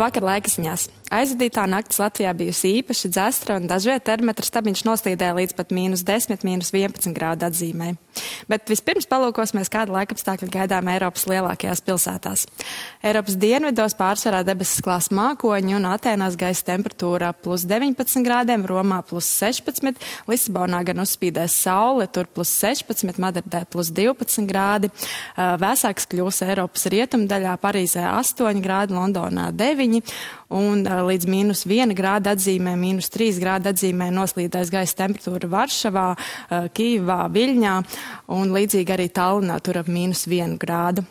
Labvakar, laikziņās. Aizvadītā naktis Latvijā bijusi īpaši dzestra un dažviet termometra stabiņš noslīdēja līdz pat -10, -11 grādu atzīmē. Bet vispirms palūkosimies, kāda laikapstākļa gaidām Eiropas lielākajās pilsētās. Eiropas dienvidos pārsvarā debesis klās mākoņi un Atēnās gaisa temperatūra +19 grādiem, Romā +16, Lisabonā gan uzspīdēs saule, tur +16, Madridē +12 grādi. Vēsāks kļūs Eiropas rietumdaļā, Parīzē 8 grādi, Londonā 9 un līdz -1 grāda atzīmē, -3 grāda atzīmē noslīdēs gaisa temperatūra Varšavā, Kīvā, Viļņā un līdzīgi arī Tallinā, tur ap -1 grādu.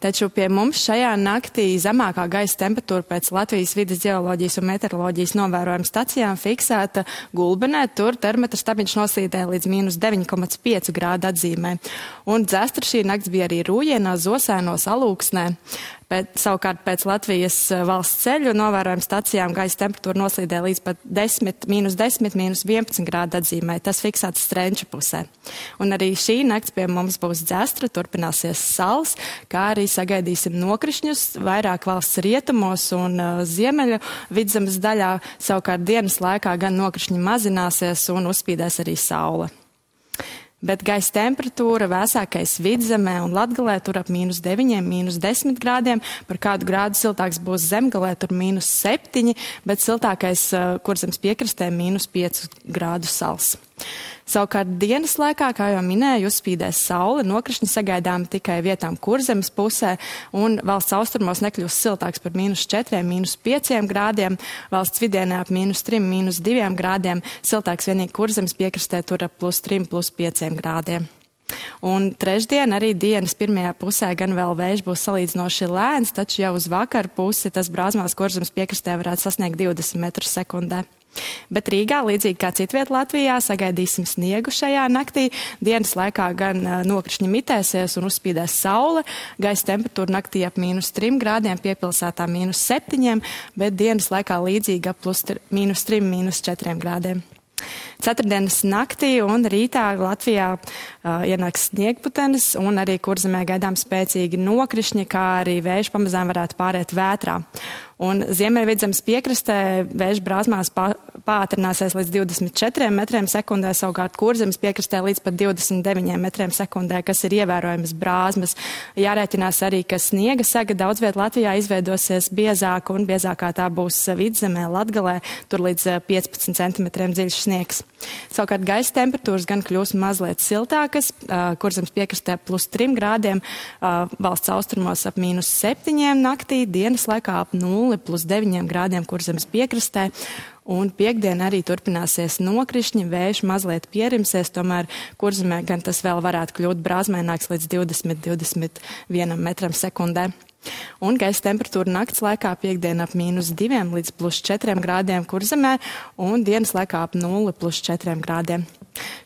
Taču pie mums šajā naktī zemākā gaisa temperatūra pēc Latvijas vides ģeoloģijas un meteoroloģijas novērojuma stacijām fiksēta Gulbenē, tur termometra stabiņš noslīdēja līdz -9,5 grādu atzīmē. Un dzestra šī nakts bija arī Rūjienā, Zosēnos, Alūksnē. Savukārt pēc Latvijas valsts ceļu novērojuma stacijām gaisa temperatūra noslīdēja līdz pat -10, -11 grādu atzīmē. Tas fiksēts Strenča pusē. Un arī šī nakts pie mums būs dzestra, turpināsies sals, kā arī sagaidīsim nokrišņus vairāk valsts rietumos un ziemeļu vidzemes daļā. Savukārt dienas laikā gan nokrišņi mazināsies un uzspīdēs arī saule. Bet gaisa temperatūra vēsākais vidzemē un Latgalē tur ap -9, -10 grādiem. Par kādu grādu siltāks būs Zemgalē, tur -7, bet siltākais Kurzemes piekrastē -5 grādu sals. Savukārt dienas laikā, kā jau minēju, uzspīdēs saule, nokrišņi sagaidām tikai vietām Kurzemes pusē, un valsts austrumos nekļūs siltāks par -4, -5 grādiem, valsts vidienē ap -3, -2 grādiem, siltāks vienīgi Kurzemes piekrastē tur ap +3, +5 grādiem. Un trešdien arī dienas pirmajā pusē gan vēl vējš būs salīdzinoši lēns, taču jau uz vakaru pusi tas Brāzmās Kurzemes piekrastē varētu sasniegt 20 metrus sekundē. Bet Rīgā, līdzīgi kā citviet Latvijā, sagaidīsim sniegu šajā naktī. Dienas laikā gan nokrišņi mitēsies un uzspīdēs saule. Gaisa temperatūra naktī ap -3 grādiem, piepilsētā -7, bet dienas laikā līdzīgi ap +3, -4 grādiem. Ceturtdienas naktī un rītā Latvijā ienāks sniegputenis un arī Kurzemē gaidām spēcīgi nokrišņi, kā arī vējš pamazām varētu pāriet vētrā. Un Ziemeļvidzemes piekrastē vējš Brāzmās pātrināsies līdz 24 metriem sekundē, savukārt Kurzemes piekrastē līdz pat 29 metriem sekundē, kas ir ievērojams brāzmas. Jārēķinās arī, ka sniega sega daudz viet Latvijā izveidosies biezāka un biezākā tā būs Vidzemē, Latgalē, tur līdz 15 centimetriem dziļš sniegs. Savukārt gaisa temperatūras gan kļūs mazliet siltākas, Kurzemes piekrastē +3 grādiem, valsts austrumos ap -7 naktī, dienas laikā ap 0, +9 grādiem Kurzemes piekrastē. Un piekdien arī turpināsies nokrišņi, vējš mazliet pierimsies, tomēr Kurzemē gan tas vēl varētu kļūt brāzmēnāks līdz 20-21 metram sekundē. Un gaisa temperatūra nakts laikā piekdien ap -2 līdz +4 grādiem Kurzemē un dienas laikā ap 0, +4 grādiem.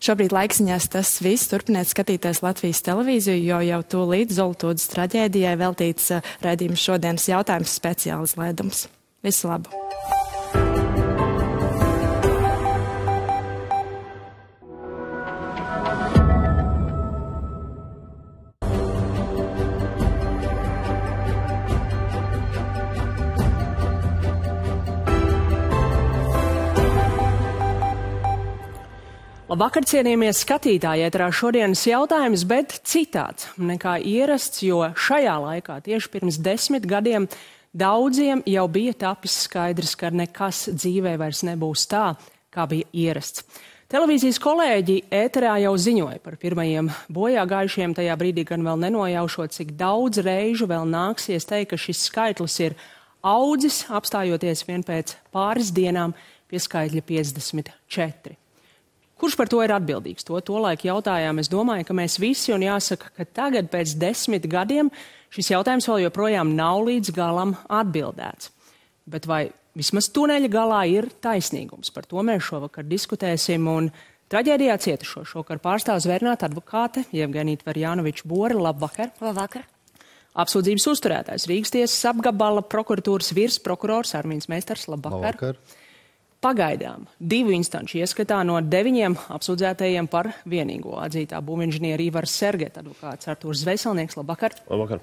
Šobrīd laikziņās tas viss. Turpiniet skatīties Latvijas televīziju, jo jau tūlīt Zoltūdas traģēdijai veltīts raidījums šodienas jautājums speciāls lēdums. Visu labu! Labvakar, cienījamies skatītāji, ēterā šodienas jautājums, bet citāds nekā ierasts, jo šajā laikā tieši pirms 10 gadiem daudziem jau bija tapis skaidrs, ka nekas dzīvē vairs nebūs tā, kā bija ierasts. Televīzijas kolēģi ēterā jau ziņoja par pirmajiem bojā gājušiem, tajā brīdī gan vēl nenojaušot, cik daudz reižu vēl nāksies teikt, ka šis skaitlis ir audzis, apstājoties vien pēc pāris dienām pie skaitļa 54. Kurš par to ir atbildīgs? To laiku jautājām. Es domāju, ka mēs visi, un jāsaka, ka tagad pēc 10 gadiem šis jautājums vēl joprojām nav līdz galam atbildēts. Bet vai vismaz tuneļa galā ir taisnīgums? Par to mēs šovakar diskutēsim, un traģēdijā cietušo šovakar pārstāv zvērnāta advokāte Jevgenija Tverjanoviča Bore. Labvakar! Labvakar! Apsūdzības uzturētājs Rīgas tiesas apgabala prokuratūras virsprokurors Armīns Meistars. Labvakar! Labvakar! Pagaidām 2 instanču ieskatā no 9 apsūdzētajiem par vienīgo atzītā būvinženiera Ivars Sergeta advokāts Artūrs Zveselnieks. Labvakar! Labvakar!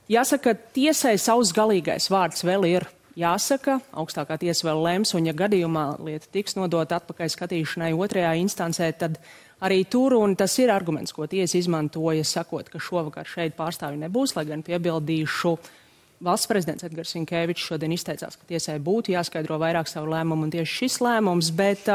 Jāsaka, tiesai savs galīgais vārds vēl ir jāsaka, augstākā tiesa vēl lems, un ja gadījumā lieta tiks nodota atpakaļ skatīšanai otrajā instancē, tad arī tur, un tas ir arguments, ko tiesa izmantoja, sakot, ka šovakar šeit pārstāvi nebūs, lai gan piebildīšu, valsts prezidents Edgars Rinkēvičs šodien izteicās, ka tiesai būtu jāskaidro vairāk savu lēmumu, un tieši šis lēmums, bet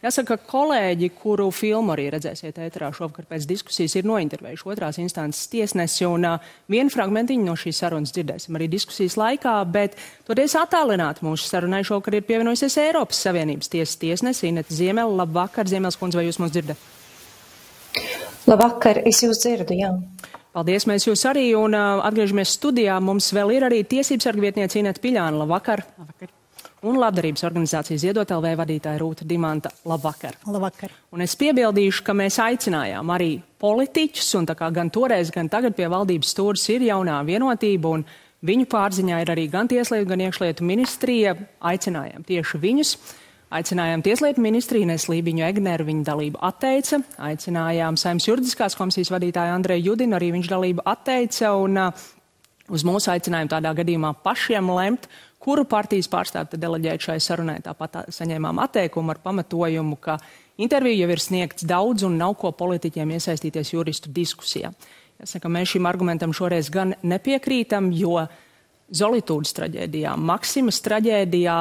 jāsaka, kolēģi, kuru filmu arī redzēsiet ēterā šovakar pēc diskusijas, ir nointervējuši otrās instances tiesnesi, un vienu fragmentiņu no šīs sarunas dzirdēsim arī diskusijas laikā, bet toties attālināt mūsu sarunai šovakar ir pievienojusies Eiropas Savienības tiesas tiesnesi Inete Ziemele. Labvakar, Ziemeles kundze, vai jūs mūs dzirdat? Labvakar, es jūs dzirdu, jā. Paldies, mēs jūs arī, un atgriežamies studijā. Mums vēl ir arī tiesības sarga vietniece Inete Piļāna. Labvakar. Labvakar. Un labdarības organizācijas Ziedot LV vadītāja Rūta Dimanta. Labvakar. Labvakar. Un es piebildīšu, ka mēs aicinājām arī politiķus, un tā kā gan toreiz, gan tagad pie valdības stūres ir jaunā vienotība, un viņu pārziņā ir arī gan Tieslietu, gan Iekšlietu ministrija. Aicinājām tieši viņus. Aicinājām Tieslietu ministriju Inesu Lībiņu Egneru, viņa dalību atteica. Aicinājām Saeimas juridiskās komisijas vadītāju Andreju Judinu, arī viņš dalību atteica. Un uz mūsu aicinājumu tādā gadījumā pašiem lemt, kuru partijas pārstāvi deleģēt šai sarunai. Tāpat saņēmām atteikumu ar pamatojumu, ka interviju jau ir sniegts daudz un nav ko politiķiem iesaistīties juristu diskusijā. Jāsaka, mēs šim argumentam šoreiz gan nepiekrītam, jo Zolitūdas traģēdijā, Maksimas traģēdijā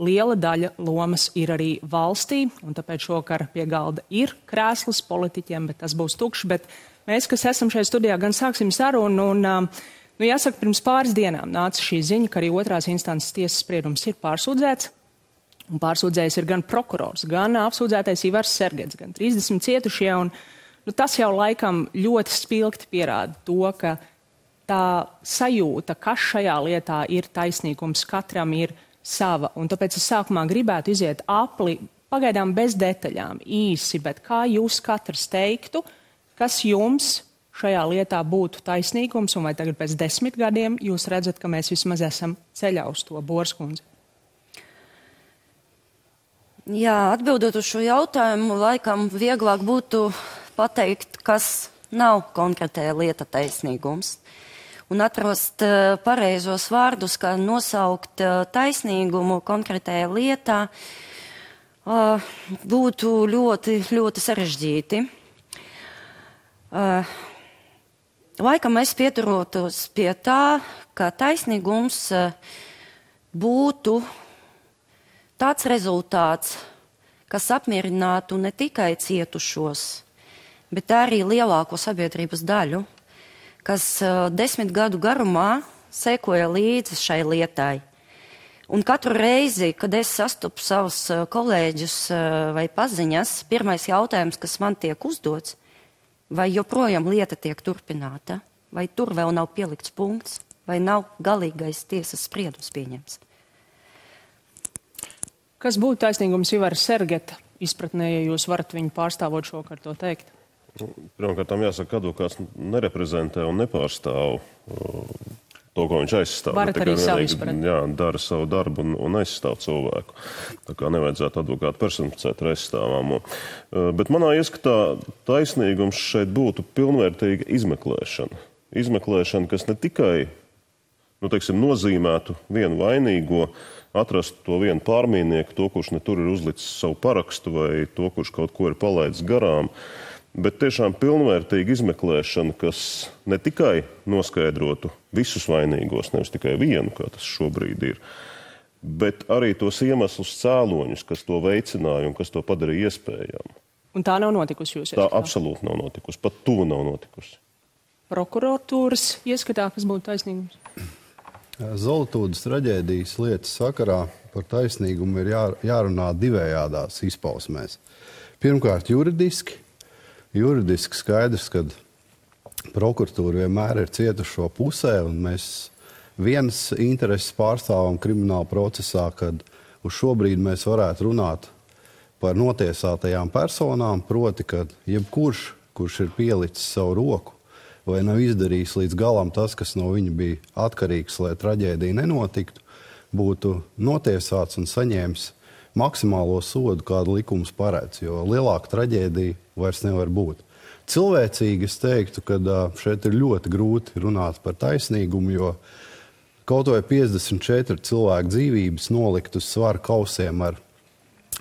liela daļa lomas ir arī valstī, un tāpēc šokar pie galda ir krēsls politiķiem, bet tas būs tukšs. Bet mēs, kas esam šajā studijā, gan sāksim sarunu, un, jāsaka, pirms pāris dienām nāca šī ziņa, ka arī otrās instances tiesas spriedums ir pārsūdzēts, un pārsūdzējs ir gan prokurors, gan apsūdzētais Ivars Sergets, gan 30 cietušie, un tas jau laikam ļoti spilgti pierāda to, ka tā sajūta, kas šajā lietā ir taisnīgums, katram ir sava, un tāpēc es sākumā gribētu iziet apli, pagaidām bez detaļām, īsi, bet kā jūs katrs teiktu, kas jums šajā lietā būtu taisnīgums, un vai tagad pēc 10 gadiem jūs redzat, ka mēs vismaz esam ceļā uz to, Borskundze? Jā, atbildot uz šo jautājumu, laikam vieglāk būtu pateikt, kas nav konkrētajā lieta taisnīgums. Un atrast pareizos vārdus, kā nosaukt taisnīgumu konkrētajā lietā, būtu ļoti, ļoti sarežģīti. Laikam es pieturotos pie tā, ka taisnīgums būtu tāds rezultāts, kas apmierinātu ne tikai cietušos, bet arī lielāko sabiedrības daļu, kas 10 gadu garumā sekoja līdzi šai lietai. Un katru reizi, kad es sastopu savus kolēģus vai paziņas, pirmais jautājums, kas man tiek uzdots, vai joprojām lieta tiek turpināta, vai tur vēl nav pielikts punkts, vai nav galīgais tiesas spriedums pieņemts. Kas būtu taisnīgums Ivara Sergeta izpratnē, ja jūs varat viņu pārstāvot šokar to teikt? Pirmkārt, advokāts nereprezentē un nepārstāv to, ko viņš aizstāv. Varat arī savu izpratni. Jā, dara savu darbu un aizstāv cilvēku. Tā kā nevajadzētu advokātu personificēt ar aizstāvāmo. Bet manā ieskatā taisnīgums šeit būtu pilnvērtīga izmeklēšana. Izmeklēšana, kas ne tikai nozīmētu vienu vainīgo, atrast to vienu pārmīnieku, to, kurš ne tur ir uzlicis savu parakstu vai to, kurš kaut ko ir palaidis garām, bet tiešām pilnvērtīga izmeklēšana, kas ne tikai noskaidrotu visus vainīgos, nevis tikai vienu, kā tas šobrīd ir, bet arī tos iemeslus cēloņus, kas to veicināja un kas to padarīja iespējamu. Un tā nav notikusi jūs ieskatā? Tā absolūti nav notikusi, pat tuvu nav notikusi. Prokuratūras ieskatā, kas būtu taisnīgums? Zolitūdas traģēdijas lietas sakarā par taisnīgumu ir jārunā divējādās izpausmēs. Pirmkārt, juridiski skaidrs, ka prokuratūra vienmēr ir cietušo pusē, un mēs vienas intereses pārstāvam krimināla procesā, kad uz šobrīd mēs varētu runāt par notiesātajām personām, proti, ka jebkurš, kurš ir pielicis savu roku vai nav izdarījis līdz galam tas, kas no viņa bija atkarīgs, lai traģēdija nenotiktu, būtu notiesāts un saņēmis maksimālo sodu, kādu likums paredz, jo lielāka traģēdija vairs nevar būt. Cilvēcīgi es teiktu, ka šeit ir ļoti grūti runāt par taisnīgumu, jo kaut vai 54 cilvēku dzīvības nolikt uz svara kausiem ar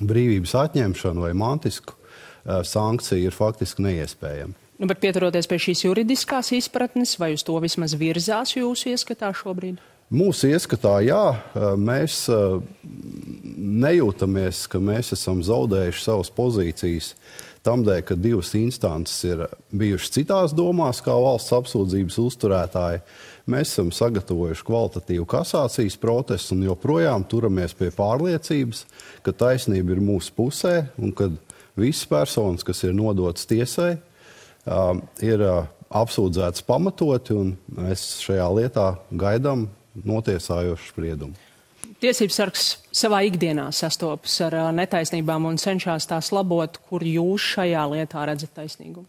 brīvības atņemšanu vai mantisku sankciju ir faktiski neiespējama. Bet pieturoties pie šīs juridiskās izpratnes, vai uz to vismaz virzās jūsu ieskatā šobrīd? Mūsu ieskatā, jā, mēs nejūtamies, ka mēs esam zaudējuši savas pozīcijas tamdēļ, ka divas instances ir bijušas citās domās, kā valsts apsūdzības uzturētāji. Mēs esam sagatavojuši kvalitatīvu kasācijas procesu un joprojām turamies pie pārliecības, ka taisnība ir mūsu pusē un ka visas personas, kas ir nodotas tiesai, ir apsūdzētas pamatoti, un mēs šajā lietā gaidām notiesājošu spriedumu. Tiesības sargs savā ikdienā sastopas ar netaisnībām un cenšas tās labot, kur jūs šajā lietā redzat taisnīgumu?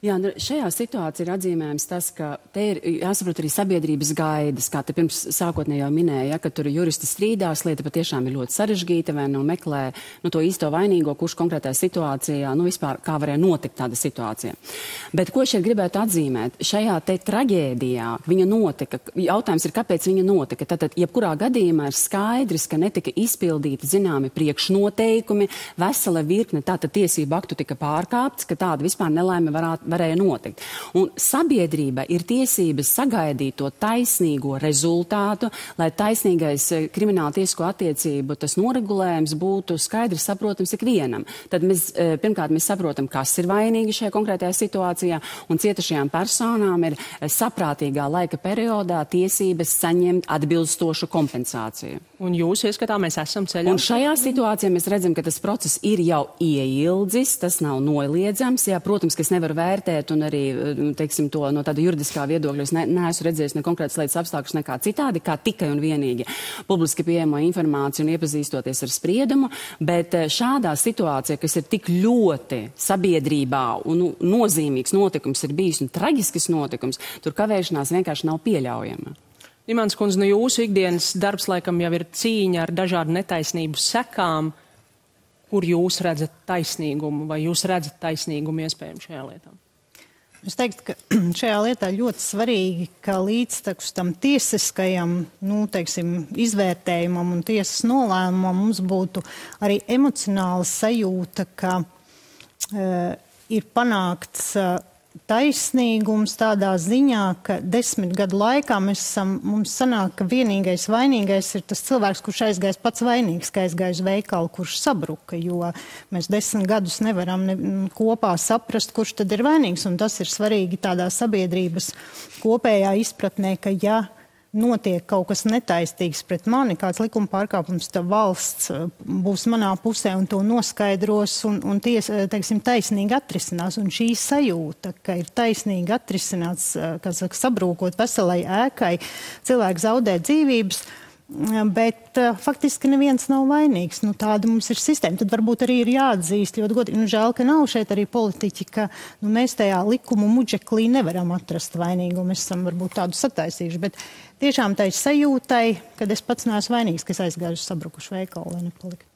Jā, šajā situācijā ir atzīmējams tas, ka te ir jāsaprot arī sabiedrības gaidas, kā te pirms sākotnēji jau minēja, ka tur juristi strīdās, lieta patiešām ir ļoti sarežģīta, vai meklē to īsto vainīgo, kurš konkrētajā situācijā, vispār kā varēja notikt tāda situācija. Bet ko šeit gribētu atzīmēt? Šajā te traģēdijā viņa notika, jautājums ir, kāpēc viņa notika. Tātad, jebkurā gadījumā ir skaidrs, ka netika izpildīti zināmi priekšnoteikumi, vesela virkne tātad tiesību aktu tika pārkāpts, ka tāda vispār nelaime varēja notikt. Un sabiedrība ir tiesības sagaidīt to taisnīgo rezultātu, lai taisnīgais krimināla tiesisko attiecību tas noregulējums būtu skaidrs saprotams ikvienam. Tad pirmkārt mēs saprotam, kas ir vainīgi šajā konkrētajā situācijā, un cietušajām personām ir saprātīgā laika periodā tiesības saņemt atbilstošu kompensāciju. Un jūs ieskatā mēs esam ceļā? Un šajā situācijā mēs redzam, ka tas process ir jau ieildzis, tas nav noliedzams. Jā, protams, ka es nevaru vērtēt un arī, teiksim, to no tāda juridiskā viedokļa. Es neesmu redzējis ne konkrētas lietas apstākļus nekā citādi, kā tikai un vienīgi publiski pieejamo informāciju un iepazīstoties ar spriedumu, bet šādā situācijā, kas ir tik ļoti sabiedrībā un nozīmīgs notikums ir bijis un traģisks notikums, tur kavēšanās vienkārši nav pieļaujama. Dimants kundze, jūsu ikdienas darbs laikam jau ir cīņa ar dažādu netaisnību sekām. Kur jūs redzat taisnīgumu vai jūs redzat taisnīgumu iespējami šajā lietā? Es teiktu, ka šajā lietā ļoti svarīgi, ka līdztekus tam tiesiskajam, izvērtējumam un tiesas nolēmumam mums būtu arī emocionāla sajūta, ka ir panākts taisnīgums tādā ziņā, ka 10 gadu laikā mums sanāk, ka vienīgais vainīgais ir tas cilvēks, kurš aizgājis pats vainīgs, ka aizgājis veikalu, kurš sabruka, jo mēs 10 gadus nevaram kopā saprast, kurš tad ir vainīgs, un tas ir svarīgi tādā sabiedrības kopējā izpratnē, ka ja notiek kaut kas netaistīgs pret mani, kāds likuma pārkāpums, tad valsts būs manā pusē un to noskaidros un taisnīgi atrisinās. Un šī sajūta, ka ir taisnīgi atrisināts, sabrūkot veselai ēkai, cilvēki zaudē dzīvības, bet faktiski neviens nav vainīgs. Tāda mums ir sistēma. Tad varbūt arī ir jāatzīst ļoti godīgi. Žēl, ka nav šeit arī politiķi, ka mēs tajā likumu muģeklī nevaram atrast vainīgu. Mēs esam varbūt tādu sataisījuši, bet tiešām tai sajūtai, kad es pats neesmu vainīgs, ka es aizgāju uz sabrukušu veikalu, lai nepaliku.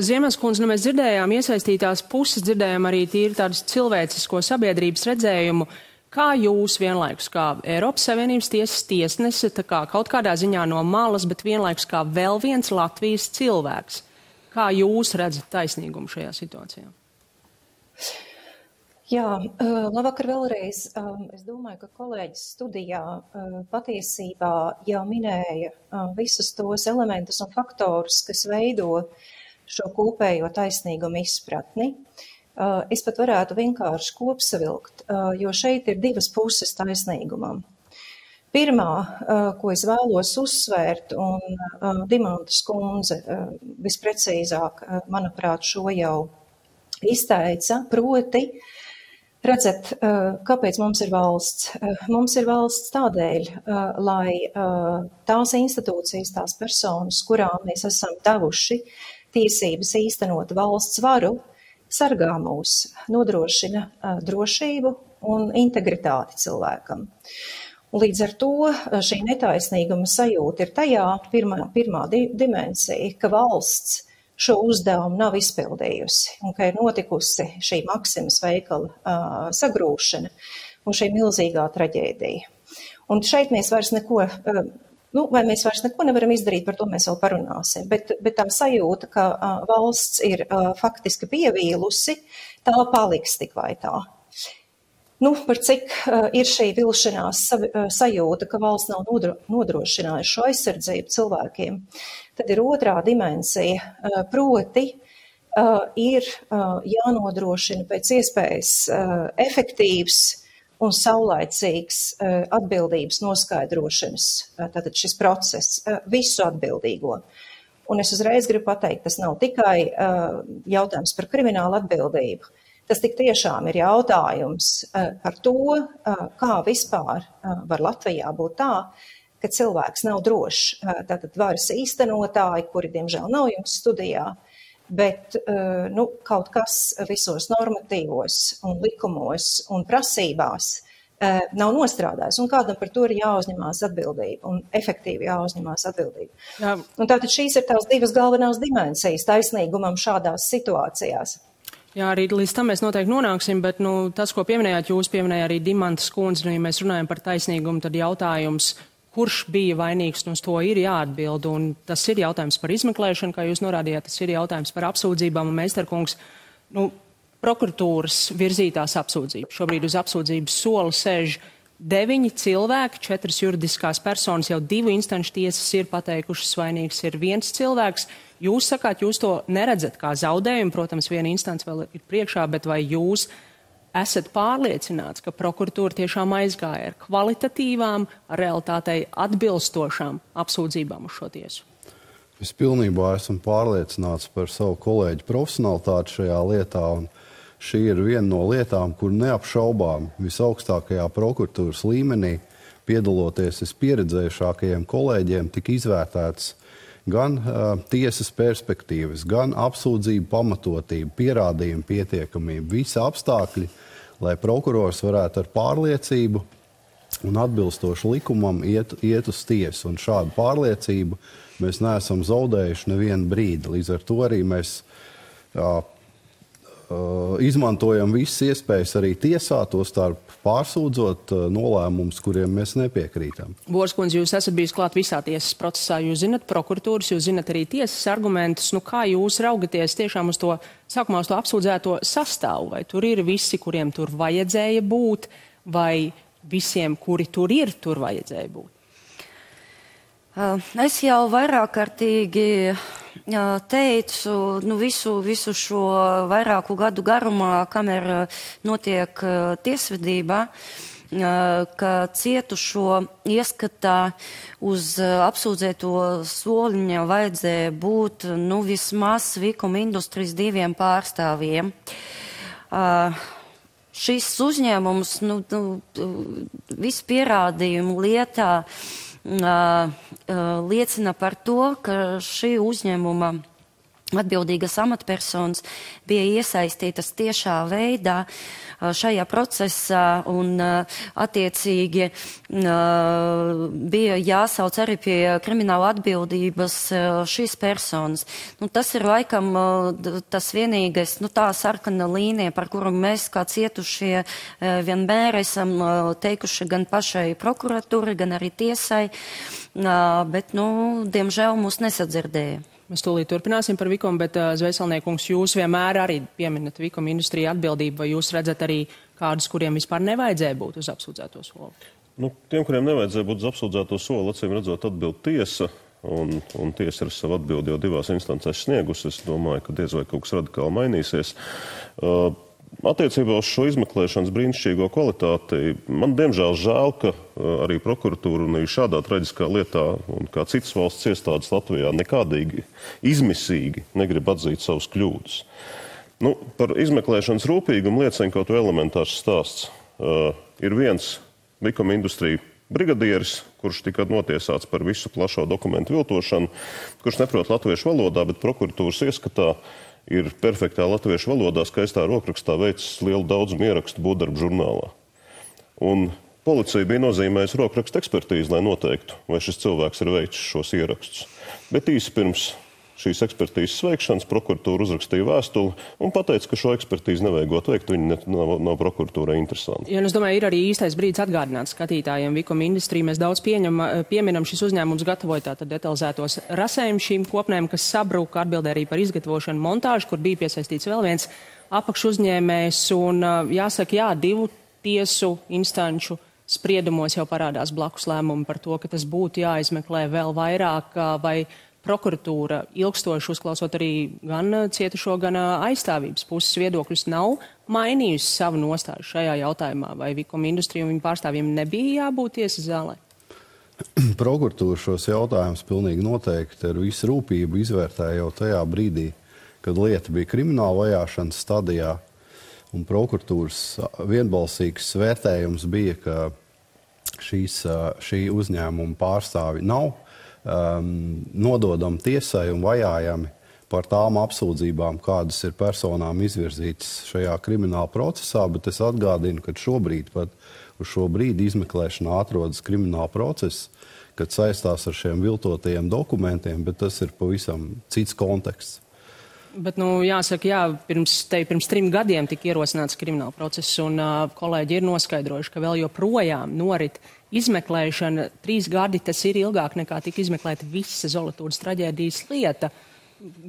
Ziemens kundze, mēs dzirdējām iesaistītās puses, dzirdējām arī tīri tādus cilvēcisko sabiedrības redzējumu. Kā jūs vienlaikus, kā Eiropas Savienības tiesas tiesnese, kaut kādā ziņā no malas, bet vienlaikus kā vēl viens Latvijas cilvēks, kā jūs redzat taisnīgumu šajā situācijā? Jā, labvakar vēlreiz. Es domāju, ka kolēģis studijā patiesībā jau minēja visus tos elementus un faktorus, kas veido šo kopējo taisnīgumu izpratni. Es pat varētu vienkārši kopsavilkt, jo šeit ir divas puses taisnīgumam. Pirmā, ko es vēlos uzsvērt, un Dimantas kundze visprecīzāk, manuprāt, šo jau izteica, proti, redzat, kāpēc mums ir valsts? Mums ir valsts tādēļ, lai tās institūcijas, tās personas, kurām mēs esam devuši tiesības īstenot valsts varu, sargā mūs, nodrošina drošību un integritāti cilvēkam. Un līdz ar to šī netaisnīguma sajūta ir tajā pirmā dimensija, ka valsts šo uzdevumu nav izpildījusi un ka ir notikusi šī Maksimas veikala sagrūšana un šī milzīgā traģēdija. Un šeit mēs vairs neko vai mēs vairs neko nevaram izdarīt, par to mēs vēl parunāsim. Bet tā sajūta, ka valsts ir faktiski pievīlusi, tā paliks tik vai tā. Par cik ir šī vilšanās sajūta, ka valsts nav nodrošinājusi šo aizsardzību cilvēkiem, tad ir otrā dimensija, proti ir jānodrošina pēc iespējas efektīvs un saulaicīgs atbildības noskaidrošanas, tātad šis process, visu atbildīgo. Un es uzreiz gribu pateikt, tas nav tikai jautājums par kriminālu atbildību. Tas tik tiešām ir jautājums par to, kā vispār var Latvijā būt tā, ka cilvēks nav drošs. Tātad varas īstenotāji, kuri diemžēl nav jums studijā, bet kaut kas visos normatīvos un likumos un prasībās nav nostrādājis, un kādam par to ir jāuzņemās atbildība un efektīvi jāuzņemās atbildība. Jā. Un tātad šīs ir tās divas galvenās dimensijas taisnīgumam šādās situācijās. Jā, arī līdz tam mēs noteikti nonāksim, bet tas, ko pieminējāt, jūs pieminējāt arī Dimantas kundze, ja mēs runājam par taisnīgumu, tad jautājums, kurš bija vainīgs, uz to ir jāatbild, un tas ir jautājums par izmeklēšanu, kā jūs norādījāt, tas ir jautājums par apsūdzībām, un Meistarkungs, prokuratūras virzītās apsūdzības. Šobrīd uz apsūdzības sola sēž 9 cilvēki, 4 juridiskās personas, jau 2 instanču tiesas ir pateikušas vainīgs ir 1 cilvēks. Jūs sakāt, jūs to neredzat kā zaudējumu, protams, viena instance vēl ir priekšā, bet vai jūs esat pārliecināts, ka prokuratūra tiešām aizgāja ar kvalitatīvām, realitātei atbilstošām apsūdzībām uz šo tiesu? Es pilnībā esmu pārliecināts par savu kolēģu profesionalitāti šajā lietā, un šī ir viena no lietām, kur neapšaubām visaugstākajā prokuratūras līmenī, piedaloties vispieredzējušākajiem kolēģiem, tika izvērtēts gan tiesas perspektīvas, gan apsūdzību pamatotību, pierādījumu pietiekamību, visi apstākļi, lai prokurors varētu ar pārliecību un atbilstoši likumam iet uz tiesu. Un šādu pārliecību mēs neesam zaudējuši nevienu brīdi. Līdz ar to arī mēs izmantojam visas iespējas arī tiesā, to starp pārsūdzot nolēmumus, kuriem mēs nepiekrītam. Borskundze, jūs esat bijis klāt visā tiesas procesā, jūs zinat prokuratūras, jūs zinat arī tiesas argumentus. Kā jūs raugaties tiešām uz to, sākumā uz to apsūdzēto sastāvu? Vai tur ir visi, kuriem tur vajadzēja būt, vai visiem, kuri tur ir, tur vajadzēja būt? Es jau vairāk kārtīgi teicu, visu šo vairāku gadu garumā, kamēr notiek tiesvedība, ka cietušo ieskatā uz apsūdzēto soliņa vajadzēja būt vismaz Vikuma industrijas 2 pārstāvjiem. Šis uzņēmums visu pierādījumu lietā liecina par to, ka šī uzņēmuma atbildīgas amatpersonas bija iesaistītas tiešā veidā šajā procesā un attiecīgi bija jāsauc arī pie krimināla atbildības šīs personas. Tas ir laikam tas vienīgais, tā sarkana līnija, par kuru mēs kā cietušie vienmēr esam teikuši gan pašai prokuratūrai, gan arī tiesai, bet, diemžēl mūs nesadzirdēja. Mēs tūlīt turpināsim par Vikumu, bet Zvēselniekungs, jūs vienmēr arī pieminat Vikuma industriju atbildību, vai jūs redzat arī kādus, kuriem vispār nevajadzēja būt uz apsūdzēto soli? Tiem, kuriem nevajadzēja būt uz apsūdzēto soli, acīm redzot atbild tiesa, un tiesa ir savu atbildi jau 2 instancēs sniegusi. Es domāju, ka diez vai kaut kas radikāli mainīsies. Attiecībā uz šo izmeklēšanas brīnišķīgo kvalitāti, man diemžēl žēl, ka arī prokuratūra un arī šādā traģiskā lietā un kā citas valsts iestādes Latvijā nekādīgi izmisīgi negrib atzīt savus kļūdas. Par izmeklēšanas rūpīgumu liecina kaut vai elementārs stāsts. Ir viens Vikuma industrija brigadieris, kurš tika notiesāts par visu plašo dokumentu viltošanu, kurš neprot latviešu valodā, bet prokuratūras ieskatā ir perfektā latviešu valodā, skaistā rokrakstā veicis lielu daudzumu ierakstu būvdarbu žurnālā. Un policija bija nozīmējusi rokrakstu ekspertīzi, lai noteiktu, vai šis cilvēks ir veicis šos ierakstus. Bet īsi pirms šīs ekspertīzes veikšanas prokuratūra uzrakstīja vēstuli un pateica, ka šo ekspertīzi nevajagot veikt, viņi nav prokuratūrai interesanti. Ja, es domāju, ir arī īstais brīdis atgādināt skatītājiem Vicom Industry. Mēs daudz pieminam, šis uzņēmums gatavoja tātad detalizētos rasējumus šīm kopnēm, kas sabruka, atbildē arī par izgatavošanu montāžu, kur bija piesaistīts vēl viens apakšuzņēmējs. Un jāsaka, jā, 2 tiesu instanču spriedumos jau parādās blakus lēmumi par to, ka tas būtu jāizmeklē vēl vairāk, vai prokuratūra ilgstoši uzklausot arī gan cietušo, gan aizstāvības puses viedokļus nav mainījusi savu nostāju šajā jautājumā, vai Vicom Industry un viņu pārstāvjiem nebija jābūt tiesas zālē? Prokuratūra šos jautājumus pilnīgi noteikti ar visu rūpību izvērtēja jau tajā brīdī, kad lieta bija krimināla vajāšanas stadijā. Un prokuratūras vienbalsīgs vērtējums bija, ka šī uzņēmuma pārstāvi nav nododami tiesai un vajājami par tām apsūdzībām, kādas ir personām izvirzītas šajā krimināla procesā, bet es atgādinu, ka šobrīd pat uz šo brīdi izmeklēšanā atrodas krimināla process, kad saistās ar šiem viltotajiem dokumentiem, bet tas ir pavisam cits konteksts. Bet, jāsaka, jā, pirms 3 gadiem tika ierosināts krimināla process, un kolēģi ir noskaidrojuši, ka vēl joprojām norit izmeklēšana. 3 gadi tas ir ilgāk nekā tika izmeklēta visa Zolatūdas traģēdijas lieta.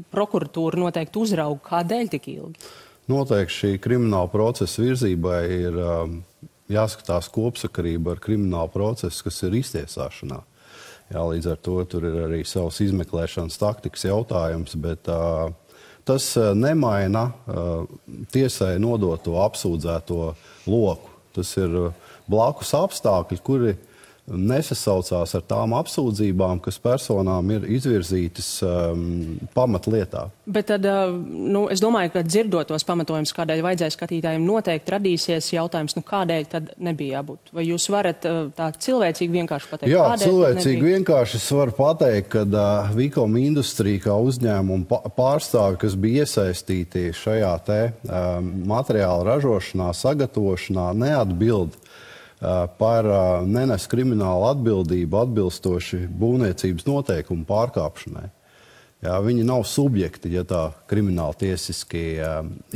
Prokuratūra noteikti uzrauga, kādēļ tik ilgi? Noteikti šī krimināla procesa virzībai ir jāskatās kopsakarība ar kriminālu procesu, kas ir iztiesāšanā. Jā, līdz ar to tur ir arī savs izmeklēšanas taktikas jautājums, bet tas nemaina tiesai nodoto apsūdzēto loku. Tas ir blakus apstākļi, kuri nesasaucās ar tām apsūdzībām, kas personām ir izvirzītas pamatlietā. Bet tad, es domāju, ka dzirdot tos pamatojumus, kādēļ vajadzēja skatītājiem, noteikti radīsies jautājums, kādēļ tad nebija jābūt. Vai jūs varat tā cilvēcīgi vienkārši pateikt? Jā, cilvēcīgi vienkārši es varu pateikt, ka Vicom Industry kā uzņēmuma pārstāvi, kas bija iesaistīti šajā materiāla ražošanā, sagatavošanā, neatbild par nenes kriminālu atbildību atbilstoši būvniecības noteikumu pārkāpšanai. Jā, viņi nav subjekti, ja tā krimināli tiesiski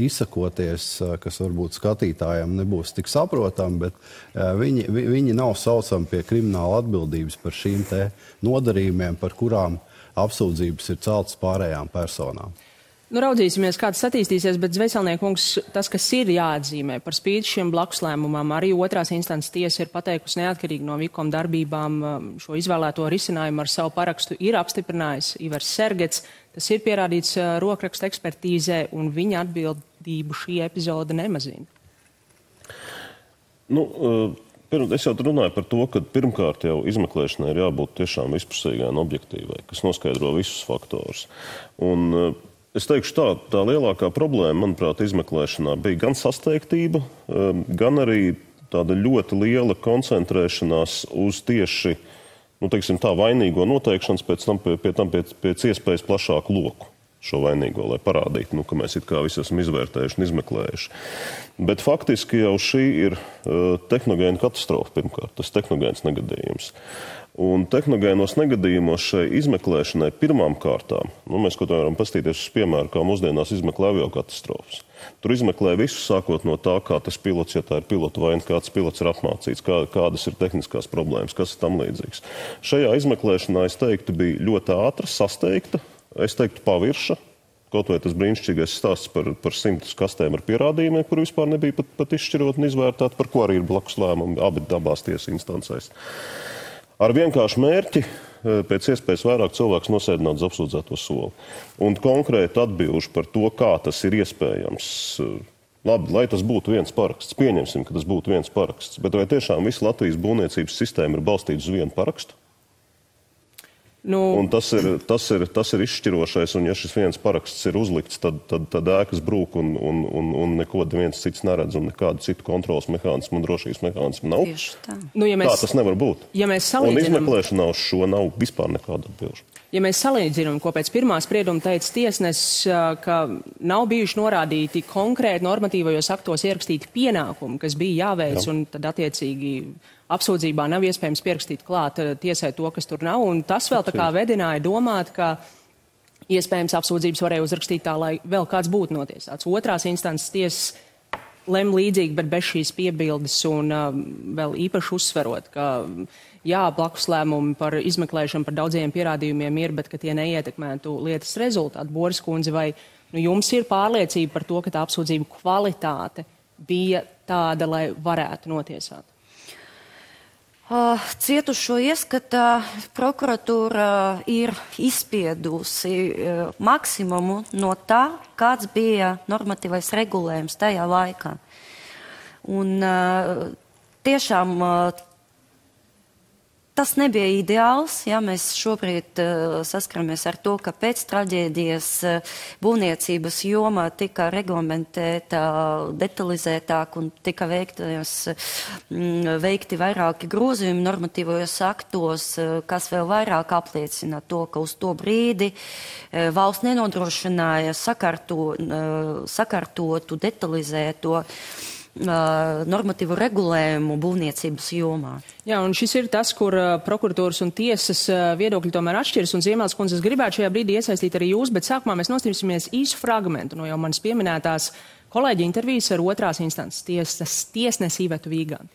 izsakoties, kas varbūt skatītājiem nebūs tik saprotami, bet viņi nav saucami pie krimināla atbildības par šīm te nodarījumiem, par kurām apsūdzības ir celtas pārējām personām. Raudzīsimies, kā tas attīstīsies, bet Zvejcelniekungs, tas, kas ir jāatzīmē par spīti šiem blakuslēmumam, arī otrās instances tiesa ir pateikusi neatkarīgi no Vicom darbībām šo izvēlēto risinājumu ar savu parakstu ir apstiprinājis Ivars Sergets. Tas ir pierādīts rokraksta ekspertīzē, un viņa atbildību šī epizode nemazina. Es jau runāju par to, ka pirmkārt jau izmeklēšanai ir jābūt tiešām vispusīgai un objektīvai, kas noskaidro visus faktorus. Un es teikšu tā lielākā problēma, manuprāt, izmeklēšanā bija gan sasteigtība, gan arī tāda ļoti liela koncentrēšanās uz tieši, vainīgo noteikšanas, pēc iespējas plašāku loku šo vainīgo, lai parādītu, ka mēs it kā visi esam izvērtējuši un izmeklējuši. Bet faktiski jau šī ir tehnogēna katastrofa pirmkārt, tas tehnogēns negadījums. Un tehnogēnos negadījumos šai izmeklēšanai pirmām kārtām, mēs kaut kā varam pastīties uz piemēru, kā mūsdienās izmeklē aviokatastrofas. Tur izmeklē visu, sākot no tā, kā tas pilots, ja tā ir pilota vaina, kāds pilots ir apmācīts, kādas ir tehniskās problēmas, kas ir tam līdzīgs. Šajā izmeklēšanā, es teiktu, bija ļoti ātra, sasteigta, es teiktu pavirša, kaut vai tas brīnišķīgais stāsts par 100 kastēm ar pierādījumiem, kur vispār nebija pat izšķirot un izvērtēt, par ko arī ir blakus lēmumi abās tiesas instancēs. Ar vienkāršu mērķi pēc iespējas vairāk cilvēks nosēdināt uz apsūdzēto soli. Un konkrēti atbilžu par to, kā tas ir iespējams. Labi, lai tas būtu viens paraksts. Pieņemsim, ka tas būtu viens paraksts. Bet vai tiešām visa Latvijas būvniecības sistēma ir balstīta uz vienu parakstu? Un tas ir izšķirošais, un ja šis viens paraksts ir uzlikts, tad ēkas brūk un neko viens cits neredz, un nekādu citu kontrolas mehānismu un drošības mehānismu nav. Tā. Tā tas nevar būt. Ja un izmeklēšanā uz šo nav vispār nekāda atbilžu. Ja mēs salīdzinām, ko pēc pirmā sprieduma teica tiesnesis, ka nav bijuši norādīti konkrēti normatīvajos aktos ierakstīti pienākumi, kas bija jāveic, un tad attiecīgi apsūdzībā nav iespējams pierakstīt klāt tiesai to, kas tur nav, un tas vēl tā kā vedināja domāt, ka iespējams apsūdzības varēja uzrakstīt tā, lai vēl kāds būtu notiesāts. Otrās instances tiesas lem līdzīgi, bet bez šīs piebildes un vēl īpaši uzsverot, ka jā, blakus lēmumi par izmeklēšanu par daudziem pierādījumiem ir, bet ka tie neietekmētu lietas rezultātu. Boris kundze, vai jums ir pārliecība par to, ka tā apsūdzību kvalitāte bija tāda, lai varētu notiesāt? Cietušo ieskatā prokuratūra ir izspiedusi maksimumu no tā, kāds bija normatīvais regulējums tajā laikā. Un tiešām tas nebija ideāls, ja mēs šobrīd saskaramies ar to, ka pēc traģēdijas būvniecības joma tika reglamentēta detalizētāk un tika veikti vairāki grozījumi normatīvajos aktos, kas vēl vairāk apliecina to, ka uz to brīdi valsts nenodrošināja sakārtotu, detalizēto normatīvu regulējumu būvniecības jomā. Jā, un šis ir tas, kur prokuratūras un tiesas viedokļi tomēr atšķiras, un Ziemēls kundze, es gribētu šajā brīdī iesaistīt arī jūs, bet sākumā mēs nostrīsimies īsu fragmentu no jau manas pieminētās kolēģi intervijas ar otrās instances tiesnesi Ivetu Vīganti.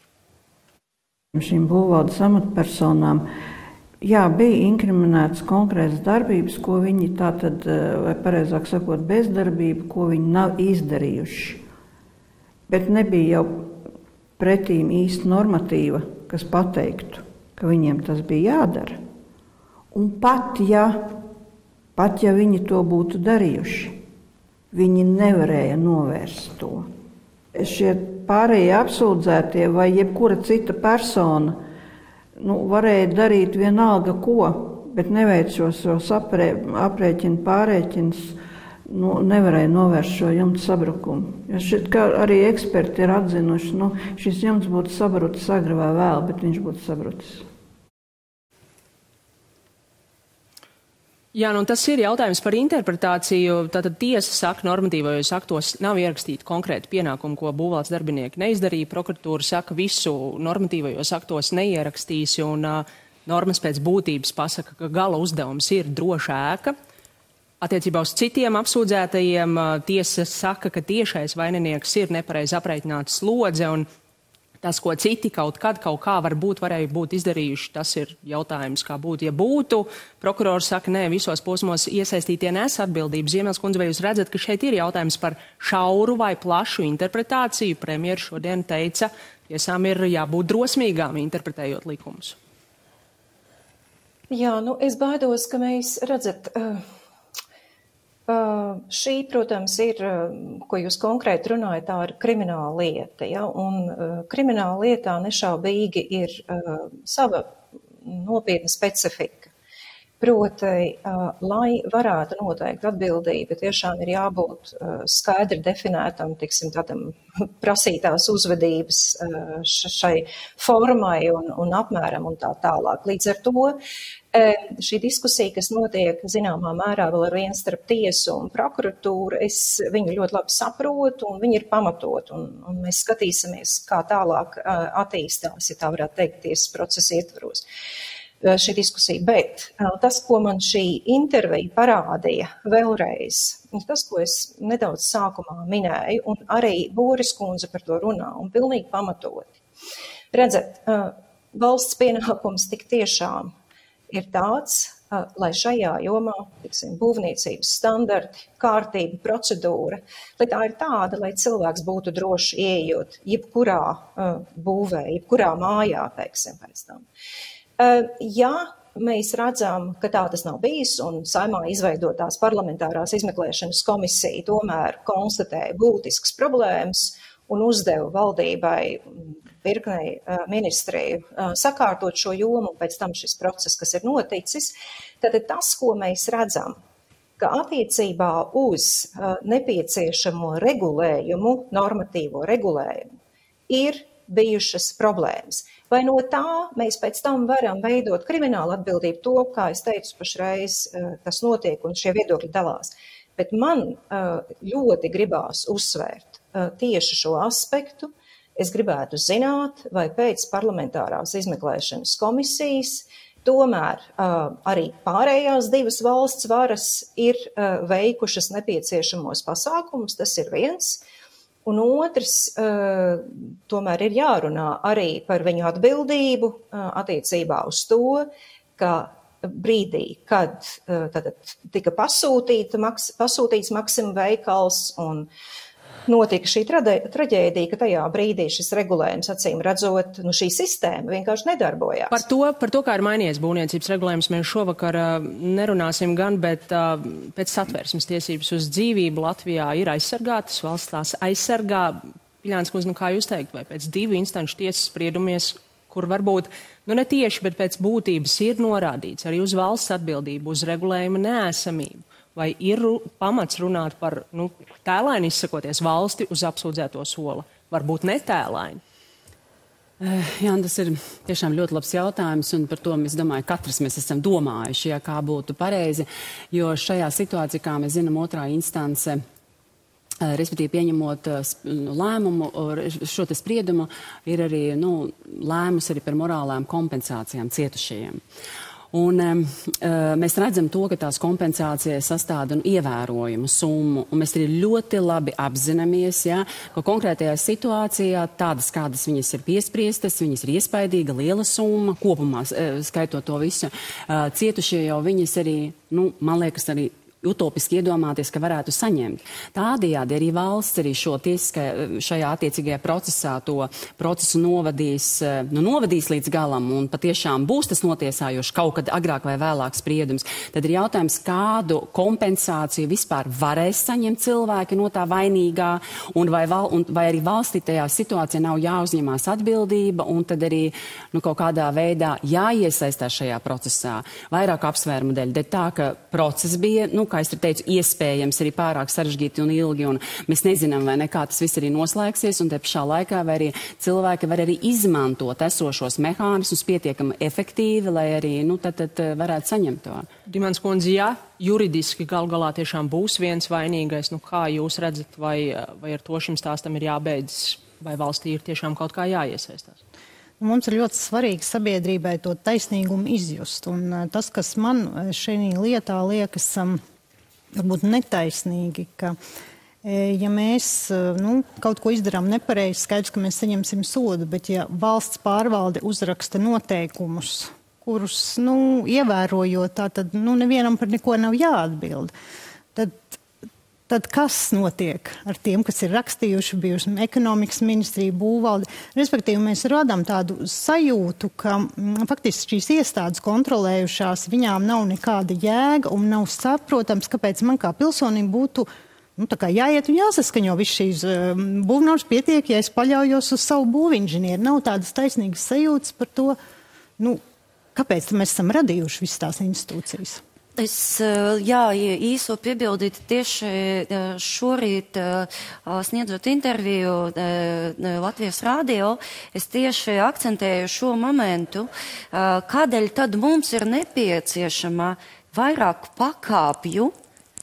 Šīm būvvaldes amatpersonām, jā, bija inkriminētas konkrētas darbības, ko viņi tātad, vai pareizāk sakot, bezdarbība, ko viņi nav izdarījuši. Bet nebija jau pretīm īsti normatīva, kas pateiktu, ka viņiem tas bija jādara. Un pat ja viņi to būtu darījuši, viņi nevarēja novērst to. Šie pārējie apsūdzētie vai jebkura cita persona varēja darīt vienalga ko, bet neveic šos aprēķinu pārēķinus, nevarēja novērst šo jumta sabrukumu. Ja šeit, kā arī eksperti ir atzinuši, šis jumts būtu sabrucis agri vai vēl, bet viņš būtu sabrucis. Jā, tas ir jautājums par interpretāciju. Tātad tiesa saka, normatīvajos aktos nav ierakstīti konkrēti pienākumi, ko būvvaldes darbinieki neizdarīja. Prokuratūra saka, visu normatīvajos aktos neierakstīs, un normas pēc būtības pasaka, ka gala uzdevums ir droša ēka. Attiecībā uz citiem apsūdzētajiem tiesa saka, ka tiešais vaininieks ir nepareizi aprēķināta slodze, un tas, ko citi kaut kā varēja būt izdarījuši, tas ir jautājums, kā būtu, ja būtu. Prokurors saka, nē, visos posmos iesaistītie nes atbildību. Ziemēls kundze, vai jūs redzat, ka šeit ir jautājums par šauru vai plašu interpretāciju? Premjeras šodien teica, tiesām ir jābūt drosmīgām interpretējot likumus. Jā, es baidos, ka mēs redzat... Šī, protams, ir, ko jūs konkrēti runājat, tā ir krimināla lieta, ja? Un krimināla lietā nešaubīgi ir sava nopietna specifika. Proti, lai varētu noteikt atbildību, tiešām ir jābūt skaidri definētam, tādam prasītās uzvedības šai formai un apmēram un tā tālāk. Līdz ar to šī diskusija, kas notiek zināmā mērā vēl ar vienu starp tiesu un prokuratūru, es viņu ļoti labi saprotu un viņi ir pamatot un mēs skatīsimies, kā tālāk attīstās, ja tā varētu teikt, tiesas procesa ietvaros. Šī diskusija, bet tas, ko man šī intervija parādīja vēlreiz, tas, ko es nedaudz sākumā minēju, un arī Boris kundze par to runā, un pilnīgi pamatoti. Redzat, valsts pienākums tik tiešām ir tāds, lai šajā jomā, būvniecības standarti, kārtība, procedūra, lai tā ir tāda, lai cilvēks būtu droši ieejot jebkurā būvē, jebkurā mājā, pēc tam. Ja mēs redzam, ka tā tas nav bijis un Saeimā izveidotās parlamentārās izmeklēšanas komisija tomēr konstatēja būtiskas problēmas un uzdeva valdībai virknei ministriju sakārtot šo jomu un pēc tam šis process, kas ir noticis, tad tas, ko mēs redzam, ka attiecībā uz nepieciešamo regulējumu, normatīvo regulējumu, ir bijušas problēmas. Vai no tā mēs pēc tam varam veidot kriminālu atbildību to, kā es teicu, pašreiz tas notiek un šie viedokļi dalās. Bet man ļoti gribās uzsvērt tieši šo aspektu. Es gribētu zināt, vai pēc parlamentārās izmeklēšanas komisijas Tomēr arī pārējās divas valsts varas ir veikušas nepieciešamos pasākumus, tas ir viens. Un otrs, tomēr ir jārunā arī par viņu atbildību attiecībā uz to, ka brīdī, kad tika pasūtīts Maxima veikals un notika šī traģēdija, ka tajā brīdī šis regulējums, acīm redzot, šī sistēma vienkārši nedarbojās. Par to, kā ir mainījies būvniecības regulējums, mēs šovakar nerunāsim gan, bet pēc satversmes tiesības uz dzīvību Latvijā ir aizsargātas, valsts tās aizsargā. Piļāns kundze, kā jūs teikt, vai pēc 2 instanču tiesas spriedumies, kur varbūt, ne tieši, bet pēc būtības ir norādīts arī uz valsts atbildību, uz regulējuma neesamību? Vai ir pamats runāt par, tēlaini izsakoties, valsti uz apsūdzēto sola? Varbūt netēlaini? Jā, tas ir tiešām ļoti labs jautājums, un par to, es domāju, katrs mēs esam domājuši, kā būtu pareizi, jo šajā situācijā, kā mēs zinām, otrā instance, respektīvi pieņemot lēmumu, šo te spriedumu, ir arī lēmus arī par morālām kompensācijām cietušajiem. Un mēs redzam to, ka tās kompensācijas sastāda ievērojumu summu, un mēs arī ļoti labi apzināmies, ka konkrētajā situācijā tādas, kādas viņas ir piespriestas, viņas ir iespaidīga, liela summa, kopumā skaitot to visu. Cietušie jau viņas arī, man liekas, arī utopiski iedomāties, ka varētu saņemt. Tādējādi arī valsts arī šajā attiecīgajā procesā to procesu novadīs līdz galam un patiešām būs tas notiesājoši kaut kad agrāk vai vēlāk spriedums. Tad ir jautājums, kādu kompensāciju vispār varēs saņemt cilvēki no tā vainīgā un vai arī valstī tajā situācijā nav jāuzņemās atbildība un tad arī kaut kādā veidā jāiesaistās šajā procesā. Vairāk apsvērumu dēļ. Tā, ka process bija, kā es teicu, iespējams arī pārāk sarežģīti un ilgi, un mēs nezinām, vai nekā tas viss arī noslēgsies, un te pašā laikā vai arī cilvēki var arī izmantot esošos mehānismus pietiekami efektīvi, lai arī, tad varētu saņemt to. Dimants kundze, juridiski galā tiešām būs viens vainīgais, kā jūs redzat, vai ar to šim stāstam ir jābeidzas, vai valstī ir tiešām kaut kā jāiesaistās? Mums ir ļoti svarīgi sabiedrībai to taisnīgumu izjust, un tas, kas man šajā lietā liekas varbūt netaisnīgi, ka ja mēs kaut ko izdarām nepareizi, skaidrs, ka mēs saņemsim sodu, bet ja valsts pārvalde uzraksta noteikumus, kurus, ievērojot, tad nevienam par neko nav jāatbild, tad kas notiek ar tiem, kas ir rakstījuši, bijuši ekonomikas ministrija, būvvalde? Respektīvi, mēs radām tādu sajūtu, ka faktiski šīs iestādes kontrolējušās, viņām nav nekāda jēga un nav saprotams, kāpēc man kā pilsonim būtu jāiet un jāsaskaņo viss šīs būvnormas pietiek, ja es paļaujos uz savu būvinženieru. Nav tādas taisnīgas sajūtas par to, kāpēc mēs esam radījuši visas tās institūcijas. Es, īso piebildītu tieši šorīt sniedzot interviju Latvijas radio, es tieši akcentēju šo momentu, kādēļ tad mums ir nepieciešama vairāk pakāpju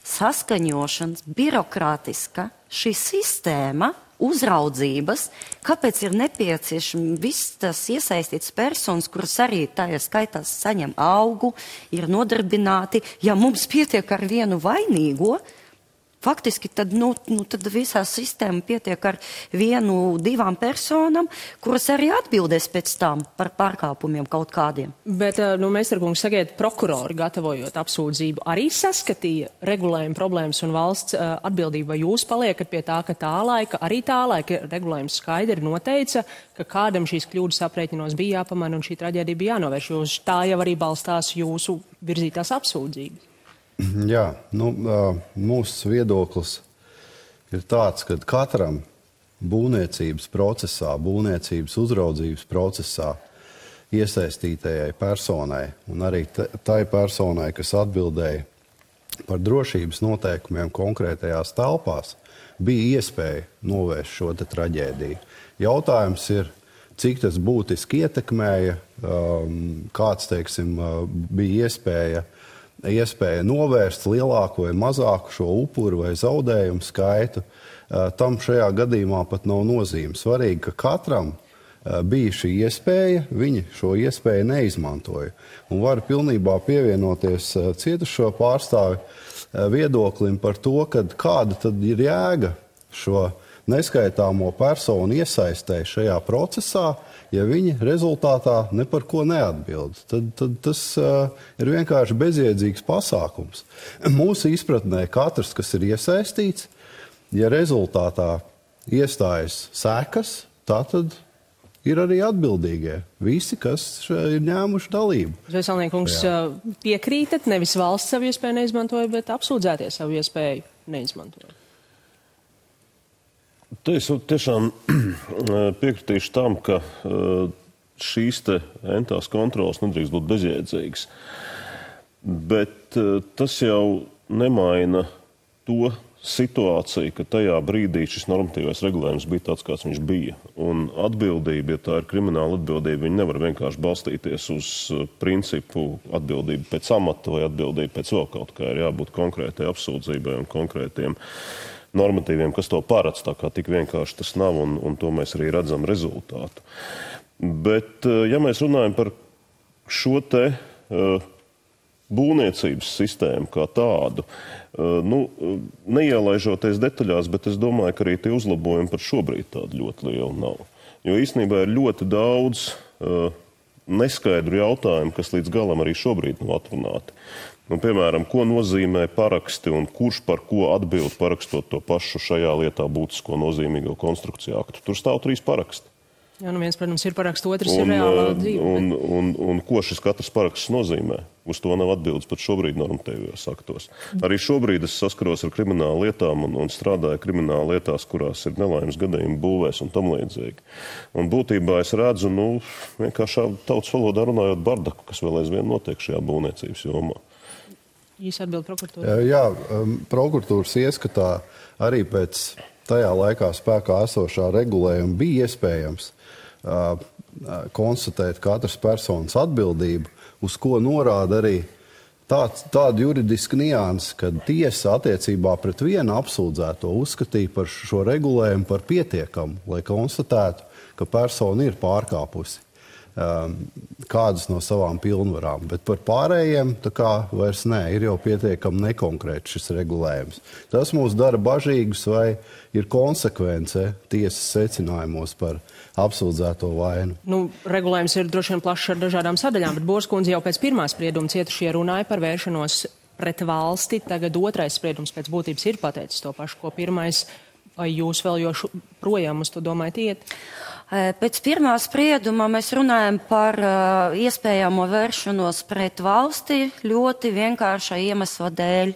saskaņošanas, birokrātiska šī sistēma, uzraudzības, kāpēc ir nepieciešami viss tas iesaistīts personas, kuras arī tajā skaitās saņem algu, ir nodarbināti. Ja mums pietiek ar vienu vainīgo, faktiski tad visā sistēma pietiek ar 1-2 personām, kuras arī atbildēs pēc tam par pārkāpumiem kaut kādiem. Bet, Meistarkungs, sakiet, prokurori gatavojot apsūdzību arī saskatīja regulējumu problēmas un valsts atbildību, vai jūs paliekat pie tā, ka arī tā laika regulējums skaidri noteica, ka kādam šīs kļūdas aprēķinos bija jāpamana un šī traģēdija bija jānovērš, jo tā jau arī balstās jūsu virzītās apsūdzības. Jā, mūsu viedoklis ir tāds, ka katram būvniecības procesā, būvniecības uzraudzības procesā iesaistītajai personai un arī tai personai, kas atbildēja par drošības noteikumiem konkrētajās telpās, bija iespēja novērst šo traģēdiju. Jautājums ir, cik tas būtiski ietekmēja, kāds, bija iespēja novērst lielāku vai mazāku šo upuru vai zaudējumu skaitu. Tam šajā gadījumā pat nav nozīme. Svarīgi, ka katram bija šī iespēja, viņi šo iespēju neizmantoja. Un var pilnībā pievienoties cietušo pārstāvi viedoklim par to, kāda tad ir jēga šo neskaitāmo personu iesaistē šajā procesā, ja viņi rezultātā ne par ko neatbild. Tad tas ir vienkārši bezjēdzīgs pasākums. Mūsu izpratnē katrs, kas ir iesaistīts, ja rezultātā iestājas sekas, tā tad ir arī atbildīgie. Visi, kas ir ņēmuši dalību. Zveselniekungs, piekrītat, nevis valsts savu iespēju neizmantoja, bet apsūdzētie savu iespēju neizmantoja. Es tiešām piekritīšu tam, ka šīs te entās kontrolas nedrīkst būt bezjēdzīgas. Bet tas jau nemaina to situāciju, ka tajā brīdī šis normatīvais regulējums bija tāds, kāds viņš bija. Un atbildība, ja tā ir krimināla atbildība, viņa nevar vienkārši balstīties uz principu atbildību pēc amata vai atbildību pēc vēl kaut kā. Ir jābūt konkrētai apsūdzībai un konkrētiem normatīviem, kas to paredz, tā kā tik vienkārši tas nav, un to mēs arī redzam rezultātu. Bet, ja mēs runājam par šo te būvniecības sistēmu kā tādu, neielaižoties detaļās, bet es domāju, ka arī tie uzlabojumi par šobrīd tādi ļoti lieli nav. Jo īstenībā ir ļoti daudz neskaidru jautājumu, kas līdz galam arī šobrīd nav atrunāti. Piemēram, ko nozīmē paraksti un kurš par ko atbild parakstot to pašu šajā lietā būtisko nozīmīgo konstrukciju aktu. Tur stāv 3 paraksti. Jā, viens, protams, ir paraksts, otrs ir reālā dzīve. Un ko šis katrs paraksts nozīmē? Uz to nav atbildes pat šobrīd normatīvajos aktos. Arī šobrīd es saskaros ar kriminālu lietām un strādāju kriminālu lietās, kurās ir nelaimes gadījumi būvēs un tam līdzīgi. Un būtībā es redzu, vienkārši tautas valodā runājot bardaku, kas vēl aizvien notiek šajā būvniecības jomā. Īsi atbild prokuratūra. Jā, prokuratūras ieskatā arī pēc tajā laikā spēkā esošā regulējuma bija iespējams konstatēt katras personas atbildību, uz ko norāda arī tāda juridiska nianse, kad tiesa attiecībā pret vienu apsūdzēto uzskatīja par šo regulējumu par pietiekamu, lai konstatētu, ka persona ir pārkāpusi kādas no savām pilnvarām. Bet par pārējiem tā kā vairs ir jau pietiekami nekonkrēts šis regulējums. Tas mūs dara bažīgus, vai ir konsekvence tiesas secinājumos par apsūdzēto vainu. Regulējums ir droši vien plašs ar dažādām sadaļām, bet Borskundze jau pēc pirmā sprieduma cietušie runāja par vēršanos pret valsti. Tagad otrais spriedums pēc būtības ir pateicis to pašu, ko pirmais. Vai jūs vēl projām uz to domājat iet? Pēc pirmā sprieduma mēs runājam par iespējamo vēršanos pret valsti ļoti vienkārša iemesla dēļ.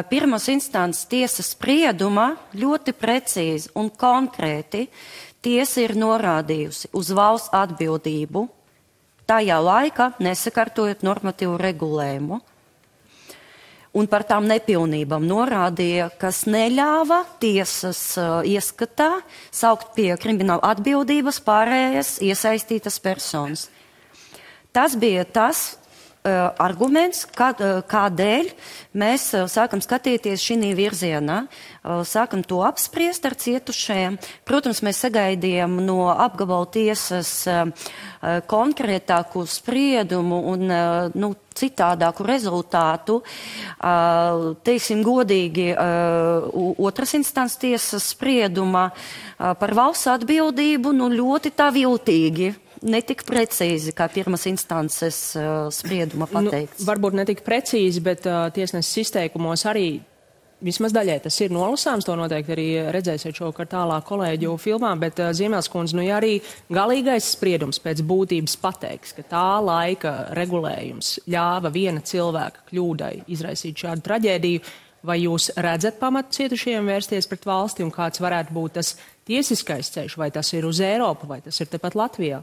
Pirmās instances tiesas sprieduma ļoti precīzi un konkrēti tiesa ir norādījusi uz valsts atbildību, tajā laikā nesakārtojot normatīvu regulējumu. Un par tām nepilnībām norādīja, kas neļāva tiesas ieskatā saukt pie krimināla atbildības pārējās iesaistītas personas. Tas bija tas arguments, kādēļ mēs sākam skatīties šī virzienā, sākam to apspriest ar cietušajiem. Protams, mēs sagaidījām no apgabala tiesas konkrētāku spriedumu un citādāku rezultātu. Teiksim godīgi, otras instances tiesas sprieduma par valsts atbildību ļoti tā viltīgi. Netik precīzi, kā pirmās instances sprieduma pateikts. Varbūt netik precīzi, bet tiesneses izteikumos arī vismaz daļai tas ir nolasāms. To noteikti arī redzēsiet šovakar tālāk kolēģu filmā, bet Ziemēlskundze, ja arī galīgais spriedums pēc būtības pateiks, ka tā laika regulējums ļāva viena cilvēka kļūdai izraisīt šādu traģēdiju, vai jūs redzat pamatu cietušajiem vērsties pret valsti un kāds varētu būt tas tiesiskais ceļš, vai tas ir uz Eiropu, vai tas ir tepat Latvijā?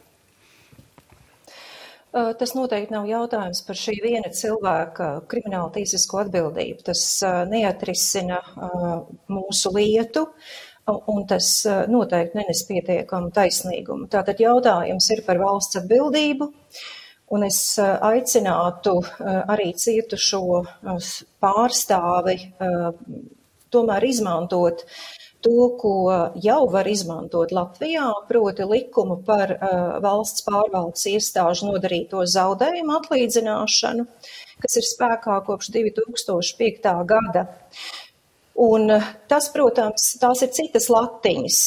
Tas noteikti nav jautājums par šī viena cilvēka krimināla tiesisko atbildību. Tas neatrisina mūsu lietu, un tas noteikti nenes pietiekamu taisnīgumu. Tātad jautājums ir par valsts atbildību, un es aicinātu arī cietušo pārstāvi tomēr izmantot to, ko jau var izmantot Latvijā, proti likumu par valsts pārvaldes iestāžu nodarīto zaudējumu atlīdzināšanu, kas ir spēkā kopš 2005. gada. Un tas, protams, tās ir citas latiņas,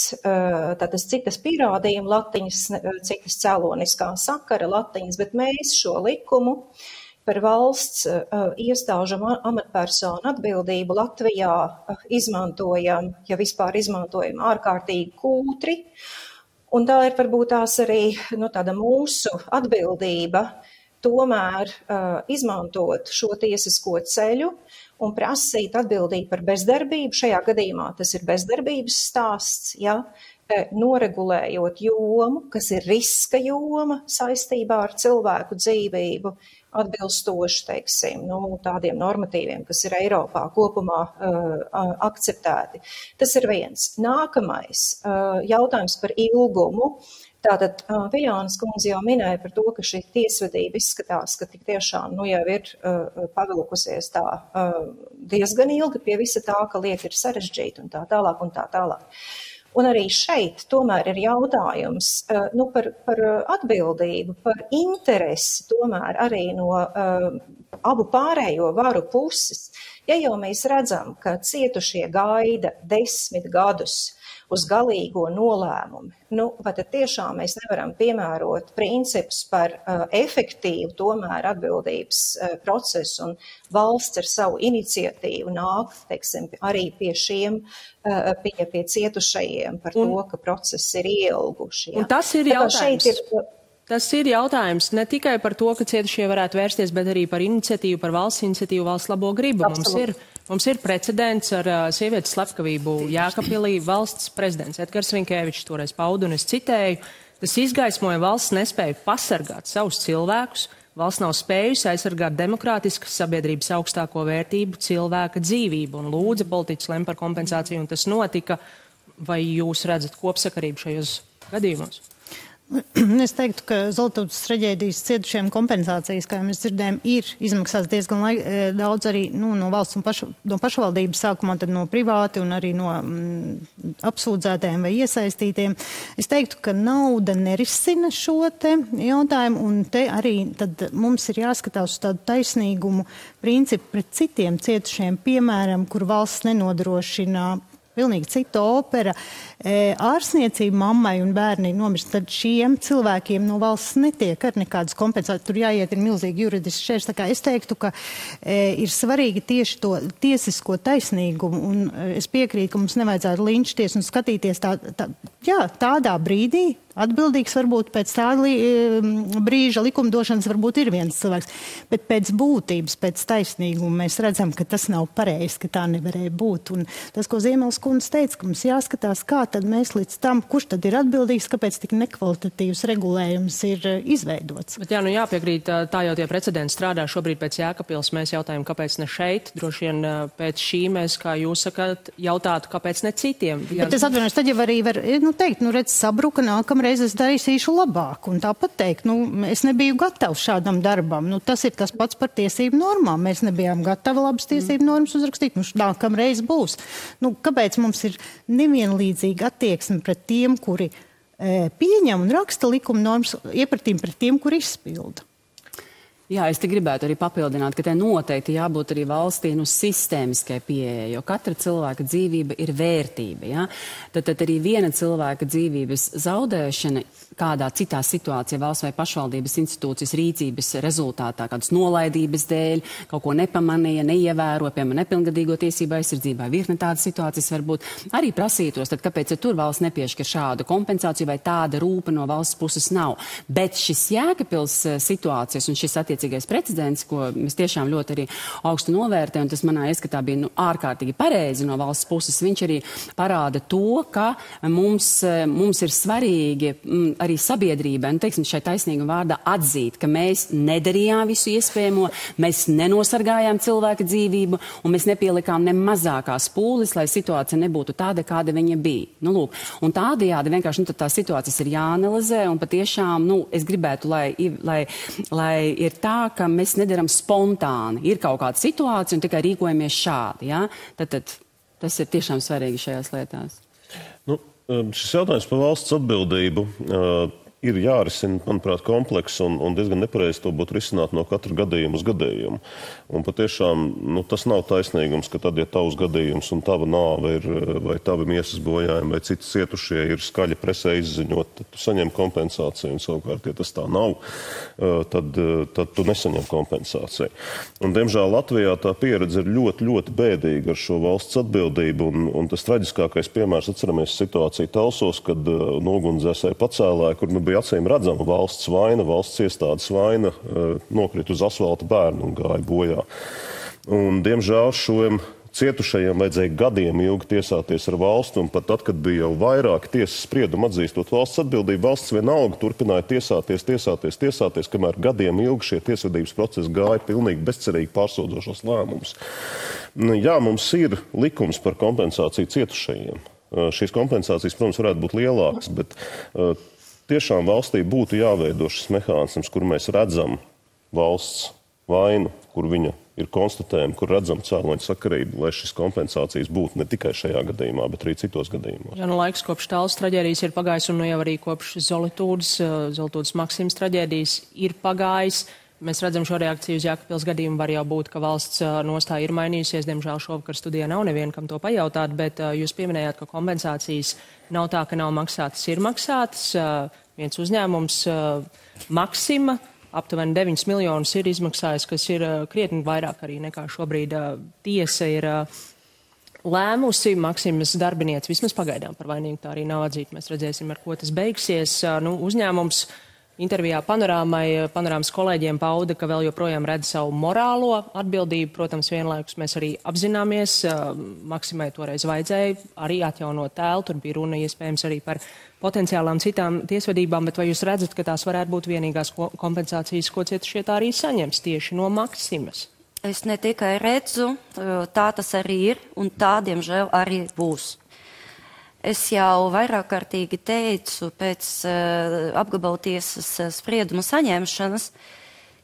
tātad citas pierādījuma latiņas, citas cēloniskā sakara latiņas, bet mēs šo likumu par valsts iestāžu amatpersonu atbildību Latvijā izmantojam, ja vispār izmantojam, ārkārtīgi kūtri. Un tā ir varbūt tās arī tāda mūsu atbildība tomēr izmantot šo tiesisko ceļu un prasīt atbildību par bezdarbību. Šajā gadījumā tas ir bezdarbības stāsts, ja, noregulējot jomu, kas ir riska joma saistībā ar cilvēku dzīvību, atbilstoši, teiksim, tādiem normatīviem, kas ir Eiropā kopumā akceptēti. Tas ir viens. Nākamais jautājums par ilgumu. Tātad Viļānas kundze jau minēja par to, ka šī tiesvedība izskatās, ka tik tiešām jau ir pavilkusies tā diezgan ilgi pie visa tā, ka lieta ir sarežģīta un tā tālāk un tā tālāk. Un arī šeit tomēr ir jautājums par atbildību, par interesi tomēr arī no abu pārējo varu puses. Ja jau mēs redzam, ka cietušie gaida 10 gadus uz galīgo nolēmumu, vai tad tiešām mēs nevaram piemērot principus par efektīvu tomēr atbildības procesu un valsts ar savu iniciatīvu nāk, teiksim, arī pie šiem, pie cietušajiem par to, ka procesi ir ielguši. Ja. Un tas ir jautājums. Tas ir jautājums ne tikai par to, ka cietušie varētu vērsties, bet arī par iniciatīvu, par valsts iniciatīvu, valsts labo gribu. Mums ir precedents ar sievietes slepkavību Jēkabpilī. Valsts prezidents Edgars Rinkēvičs toreiz pauda, un es citēju, tas izgaismoja valsts nespēju pasargāt savus cilvēkus. Valsts nav spējusi aizsargāt demokrātiskas sabiedrības augstāko vērtību, cilvēka dzīvību, un lūdza politiķis lem par kompensāciju, un tas notika. Vai jūs redzat kopsakarību šajos gadījumos? Es teiktu, ka Zoltūdas traģēdijas cietušiem kompensācijas, kā mēs dzirdējām, ir izmaksāts diezgan daudz arī no valsts un no pašvaldības sākumā, tad no privāti un arī no apsūdzētiem vai iesaistītiem. Es teiktu, ka nauda nerisina šo te jautājumu, un te arī tad mums ir jāskatās uz tādu taisnīgumu principu pret citiem cietušiem, piemēram, kur valsts nenodrošina pilnīgi cita opera, ārsniecība mammai un bērni nomirst, tad šiem cilvēkiem no valsts netiek ar nekādas kompensācijas. Tur jāiet ir milzīgi juridiski šķērs. Tā kā es teiktu, ka ir svarīgi tieši to tiesisko taisnīgumu, un es piekrītu, ka mums nevajadzētu linčties un skatīties tādā brīdī. Atbildīgs varbūt pēc tāda brīža likumdošanas varbūt ir viens cilvēks, bet pēc būtības, pēc taisnīguma mēs redzam, ka tas nav pareizi, ka tā nevarēja būt. Un tas, ko Ziemeles kundze teica, ka mums jāskatās, kā tad mēs līdz tam, kurš tad ir atbildīgs, kāpēc tik nekvalitatīvs regulējums ir izveidots. Bet jāpiekrīt, tā jau tie precedenti strādā šobrīd pēc Jēkabpils. Mēs jautājam, kāpēc ne šeit. Droši vien pēc šī mēs, kā jūs sakat, jautātu, kāpēc ne citiem. Bet es atvainojos, tad jau arī var teikt, redz, sabruka, nākamreiz es darīšu labāk. Un tāpat teikt, es nebiju gatavs šādam darbam. Tas ir tas pats par tiesību normām. Mēs nebijām gatavi labas tiesību normas uzrakstīt. Nākamreiz būs. Kāpēc mums ir nevienlīdzīga attieksme pret tiem, kuri pieņem un raksta likuma normas, iepratīm pret tiem, kuri izpilda? Jā, es te gribētu arī papildināt, ka te noteikti jābūt arī valstī sistēmiskai pieejai, jo katra cilvēka dzīvība ir vērtība. Ja? Tad arī viena cilvēka dzīvības zaudēšana kādā citā situācijā, valsts vai pašvaldības institūcijas rīcības rezultātā, kādas nolaidības dēļ, kaut ko nepamanīja, neievēro, piemēram, nepilngadīgo tiesību aizsardzībā, virkne tādas situācijas varbūt arī prasītos, tad kāpēc tur valsts nepiešķir šādu kompensāciju vai tāda rūpa no valsts puses nav. Bet šis Jēkabpils situācijas un šis attiecīgais precedents, ko mēs tiešām ļoti arī augstu novērtējam, un tas manā ieskatā bija ārkārtīgi pareizi no valsts puses, viņš arī parāda to, ka mums ir svarīgi arī sabiedrībai, teiksim, šai taisnīguma vārdā atzīt, ka mēs nedarījām visu iespējamo, mēs nenosargājām cilvēka dzīvību, un mēs nepielikām ne mazākās pūles, lai situācija nebūtu tāda, kāda viņa bija. Lūk, un tādējādi vienkārši tā situācijas ir jāanalizē, un patiešām, es gribētu, lai ir tā, ka mēs nedaram spontāni. Ir kaut kāda situācija un tikai rīkojamies šādi. Ja? Tad Tas ir tiešām svarīgi šajās lietās. Šis jautājums par valsts atbildību ir jārisina, manuprāt, komplekss un diezgan nepareizi to būtu risināt no katra gadījuma uz gadījumu. Un patiešām tas nav taisnīgums, ka tad, ja tavs gadījums un tava nāve ir, vai tavi miesas bojājumi, vai citi cietušie ir skaļi presē izziņot, tad tu saņem kompensāciju, un savukārt, ja tas tā nav, tad tu nesaņem kompensāciju. Un, diemžēl, Latvijā tā pieredze ir ļoti, ļoti bēdīga ar šo valsts atbildību, un tas traģiskākais piemērs, atceramies situāciju Talsos, kad nogunsdzēsēji pacēlāja, kur bija acīm redzama valsts vaina, valsts iestādes vaina, nokrita uz asfalta bērnu un gāja bojā. Un, diemžēl, šiem cietušajiem vajadzēja gadiem ilgi tiesāties ar valstu, un pat tad, kad bija jau vairāki tiesas spriedumi atzīstot valsts atbildību, valsts vienalga turpināja tiesāties, kamēr gadiem ilgi šie tiesvedības procesi gāja pilnīgi bezcerīgi pārsūdzošos lēmumus. Jā, mums ir likums par kompensāciju cietušajiem. Šīs kompensācijas, protams, varētu būt lielākas, bet tiešām valstī būtu jāveido šis mehānisms, kur mēs redzam valsts vainu, kur viņa ir konstatējama, kur redzam cēloņu sakarību, lai šis kompensācijas būtu ne tikai šajā gadījumā, bet arī citos gadījumos. Jā, laiks kopš Tallas traģēdijas ir pagājis, un jau arī kopš Zolitūdas Maksimas traģēdijas ir pagājis. Mēs redzam šo reakciju uz Jēkabpils gadījumu, var jau būt, ka valsts nostāja ir mainījusies. Diemžēl šovakar studijā nav neviena, kam to pajautāt, bet jūs pieminējāt, ka kompensācijas nav tā, ka nav maksātas, ir maksātas. Viens uzņēmums Maksima aptuveni 9 miljonus ir izmaksājis, kas ir krietni vairāk arī nekā šobrīd tiesa ir lēmusi. Maksimas darbinieci vismaz pagaidām par vainīgu tā arī nav atzīta. Mēs redzēsim, ar ko tas beigsies. Uzņēmums intervijā Panorāmas kolēģiem pauda, ka vēl joprojām redz savu morālo atbildību. Protams, vienlaikus mēs arī apzināmies, Maksimai toreiz vajadzēja arī atjaunot tēlu, tur bija runa iespējams arī par potenciālām citām tiesvedībām, bet vai jūs redzat, ka tās varētu būt vienīgās kompensācijas, ko cietušie tā arī saņems tieši no Maksimas? Es ne tikai redzu, tā tas arī ir, un tā, diemžēl, arī būs. Es jau vairāk kārtīgi teicu pēc apgabaltiesas sprieduma saņemšanas,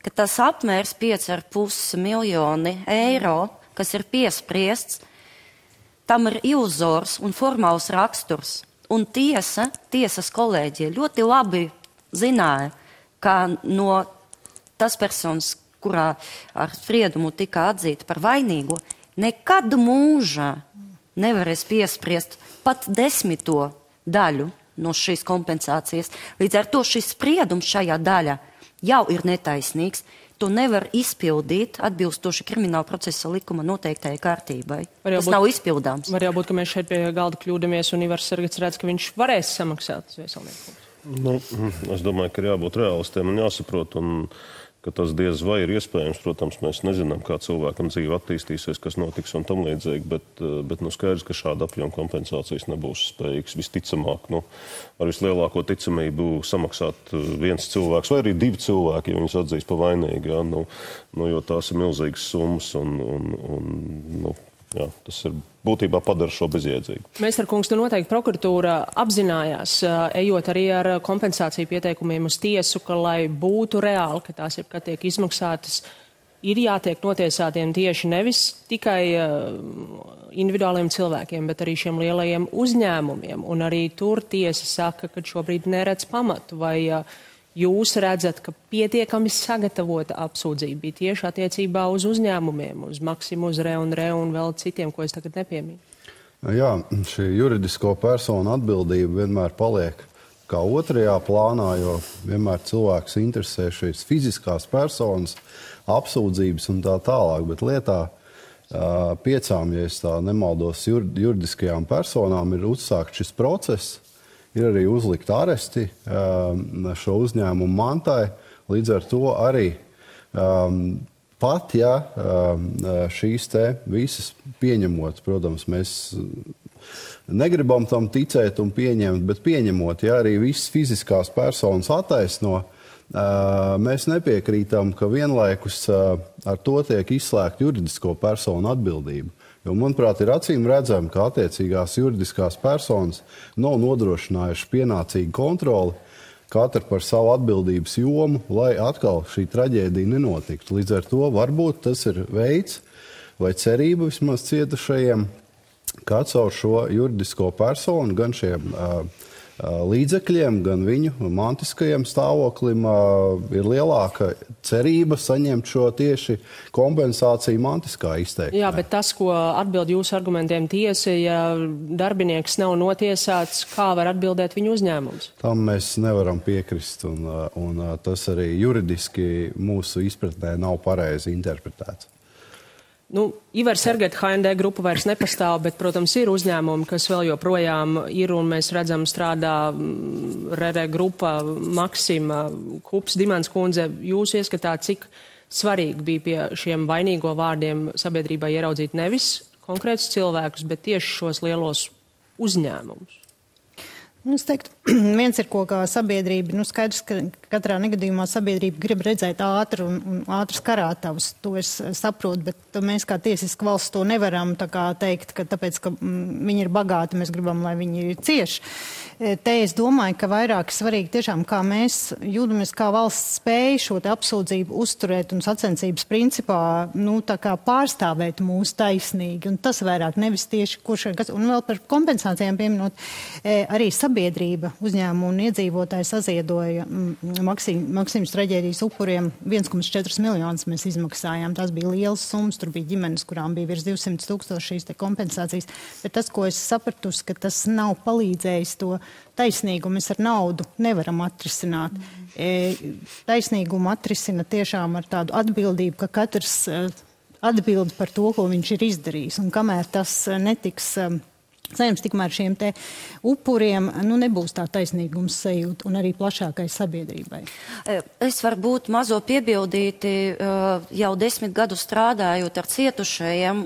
ka tas apmērs 5,5 miljoni eiro, kas ir piespriests, tam ir iluzors un formāls raksturs. Un tiesas kolēģija ļoti labi zināja, ka no tas personas, kurā ar spriedumu tika atzīta par vainīgo, nekad mūžā nevarēs piespriest pat 10. daļu no šīs kompensācijas. Līdz ar to šis spriedums šajā daļā jau ir netaisnīgs. To nevar izpildīt atbilstoši krimināla procesa likuma noteiktajai kārtībai. Tas nav izpildāms. Var jau būt, ka mēs šeit pie galda kļūdamies un Ivars Sargats redz, ka viņš varēs samaksāt Zveselnieku. Es domāju, ka ir jābūt realistiem un jāsaprot, un ka tas diez vai ir iespējams. Protams, mēs nezinām, kā cilvēkam dzīve attīstīsies, kas notiks un tam līdzīgi, bet skaidrs, ka šāda apjoma kompensācijas nebūs spējīgs visticamāk. Ar vislielāko ticamību samaksāt viens cilvēks vai arī 2 cilvēki, ja viņus atzīs pa vainīgi, jo tās ir milzīgas summas un tas ir būtībā padara šo bezjēdzīgu. Mēstar kungs, noteikti prokuratūra apzinājās, ejot arī ar kompensāciju pieteikumiem uz tiesu, ka, lai būtu reāli, ka tās jebkad tiek izmaksātas, ir jātiek notiesātiem tieši nevis tikai individuāliem cilvēkiem, bet arī šiem lielajiem uzņēmumiem. Un arī tur tiesa saka, ka šobrīd neredz pamatu. Vai jūs redzat, ka pietiekami sagatavota apsūdzība bija tieši attiecībā uz uzņēmumiem, uz Maksimu, uz Re un vēl citiem, ko es tagad nepieminu? Jā, šī juridisko personu atbildība vienmēr paliek kā otrajā plānā, jo vienmēr cilvēks interesē šīs fiziskās personas, apsūdzības un tā tālāk, bet lietā 5, ja es tā nemaldos, juridiskajām personām ir uzsākt šis process. Ir arī uzlikt aresti šo uzņēmumu mantai. Līdz ar to arī pat, ja šīs te visas pieņemot, protams, mēs negribam tam ticēt un pieņemt, bet pieņemot, ja arī visas fiziskās personas attaisno, mēs nepiekrītam, ka vienlaikus ar to tiek izslēgt juridisko personu atbildību. Jo, manuprāt, ir acīm redzami, ka attiecīgās juridiskās personas nav nodrošinājuši pienācīgu kontroli, katra par savu atbildības jomu, lai atkal šī traģēdija nenotiktu. Līdz ar to varbūt tas ir veids vai cerība vismaz cietušajiem ka caur šo juridisko personu gan šiem līdzekļiem, gan viņu mantiskajam stāvoklim ir lielāka cerība saņemt šo tieši kompensāciju mantiskā izteikumā. Jā, bet tas, ko atbild jūsu argumentiem tiesa, ja darbinieks nav notiesāts, kā var atbildēt viņu uzņēmums? Tam mēs nevaram piekrist, un tas arī juridiski mūsu izpratnē nav pareizi interpretēts. Ivar Sergeta HND grupa vairs nepastāv, bet, protams, ir uzņēmumi, kas vēl joprojām ir, un mēs redzam strādā RR grupa, Maksima, Kups, Dimants kundze. Jūs ieskatāt, cik svarīgi bija pie šiem vainīgo vārdiem sabiedrībai ieraudzīt nevis konkrētus cilvēkus, bet tieši šos lielos uzņēmumus? Es teiktu, viens ir, ko kā sabiedrība, skaidrs, ka katrā negadījumā sabiedrība grib redzēt ātru un ātras karātavas. To es saprotu, bet mēs kā tiesiska valsts to nevaram tā kā teikt, ka tāpēc, ka viņi ir bagāti, mēs gribam, lai viņi cieši. Te es domāju, ka vairāk svarīgi tiešām, kā mēs jūtamies, kā valsts spēja šo te apsūdzību uzturēt un sacensības principā, tā kā pārstāvēt mūsu taisnīgi. Un tas vairāk nevis tieši kurš, un vēl par kompensācijām pieminot, arī sabiedrība, uzņēmumu un iedzīvotāji saziedoja Maksimas traģēdijas upuriem 1,4 miljonus mēs izmaksājām. Tas bija liels summas, tur bija ģimenes, kurām bija virs 200 000 šīs te kompensācijas. Bet tas, ko es sapratusi, ka tas nav palīdzējis to taisnīgumu, mēs ar naudu nevaram atrisināt. Taisnīgumu atrisina tiešām ar tādu atbildību, ka katrs atbild par to, ko viņš ir izdarījis. Un kamēr tas netiks saņems, tikmēr šiem te upuriem nebūs tā taisnīgums sajūta un arī plašākai sabiedrībai. Es varbūt mazo piebildīti, jau 10 gadu strādājot ar cietušajiem,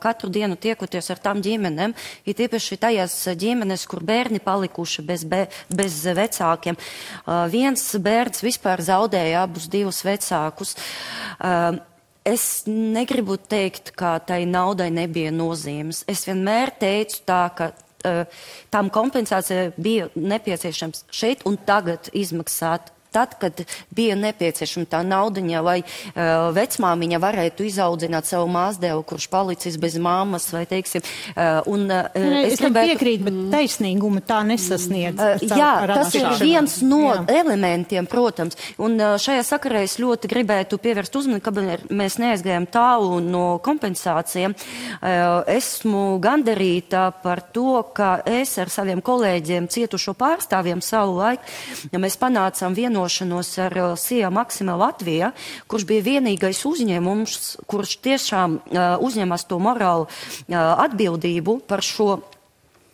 katru dienu tiekoties ar tām ģimenēm, ir tiepaši tajās ģimenes, kur bērni palikuši bez vecākiem. Viens bērns vispār zaudēja abus divus vecākus. Es negribu teikt, ka tai naudai nebija nozīmes. Es vienmēr teicu tā, ka tām kompensācija bija nepieciešams šeit un tagad izmaksāt. Tad, kad bija nepieciešama tā naudiņa, lai vecmāmiņa varētu izaudzināt savu māsdēlu, kurš palicis bez māmas, vai teiksim. Es piekrītu, bet taisnīgumu tā nesasniedz. Jā, tas ir viens no elementiem, protams. Un šajā sakarā es ļoti gribētu pievērst uzmanību, ka mēs neaizgājām tālu no kompensācijām. Esmu gandarīta par to, ka es ar saviem kolēģiem cietušo pārstāvjiem savu laiku, ja mēs panācām vienošanos ar SIA Maksima Latvija, kurš bija vienīgais uzņēmums, kurš tiešām uzņemas to morālu atbildību par šo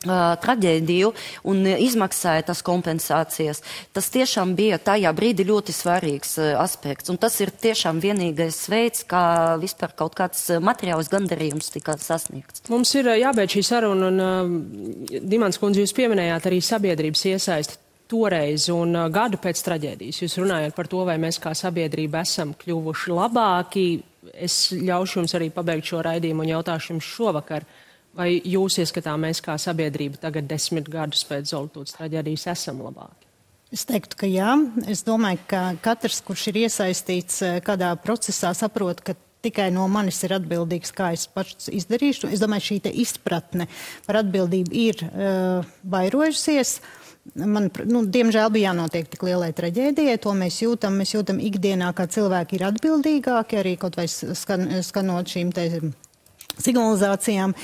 traģēdiju un izmaksāja tas kompensācijas. Tas tiešām bija tajā brīdī ļoti svarīgs aspekts. Un tas ir tiešām vienīgais veids, kā vispār kaut kāds materiāls gandarījums tika sasniegts. Mums ir jābeidz šī saruna, un Dimants kundze, jūs pieminējāt arī sabiedrības iesaisti toreiz un gadu pēc traģēdijas. Jūs runājat par to, vai mēs kā sabiedrība esam kļuvuši labāki. Es ļaušu jums arī pabeigt šo raidījumu un jautāšu jums šovakar, vai jūs ieskatā mēs kā sabiedrība tagad 10 gadus pēc Zoltūdas traģēdijas esam labāki? Es teiktu, ka jā. Es domāju, ka katrs, kurš ir iesaistīts kādā procesā, saprot, ka tikai no manis ir atbildīgs, kā es pats izdarīšu. Es domāju, šī te izpratne par atbildību ir vairojusies. Diemžēl bija jānotiek tik lielai traģēdijai, to mēs jūtam ikdienā, kā cilvēki ir atbildīgāki, arī kaut vai skanot šīm te signalizācijām.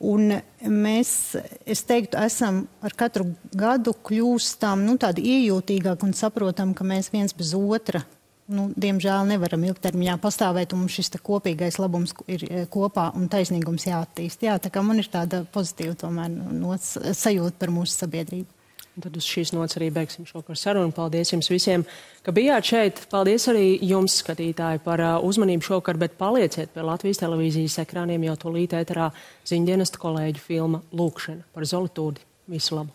Un mēs, es teiktu, esam ar katru gadu kļūstam tādi iejūtīgāki un saprotam, ka mēs viens bez otra, diemžēl nevaram ilgtermiņā pastāvēt, un mums šis kopīgais labums ir kopā un taisnīgums jāattīst. Jā, tā kā man ir tāda pozitīva tomēr sajūta par mūsu sabiedrību. Tad uz šīs nots arī beigsim šovakar sarunu. Paldies jums visiem, ka bijāt šeit. Paldies arī jums, skatītāji, par uzmanību šovakar, bet palieciet pie Latvijas televīzijas ekrāniem, jau tūlīt ēterā ziņdienesta kolēģu filma Lūkšana par Zoltūdi. Visu labu!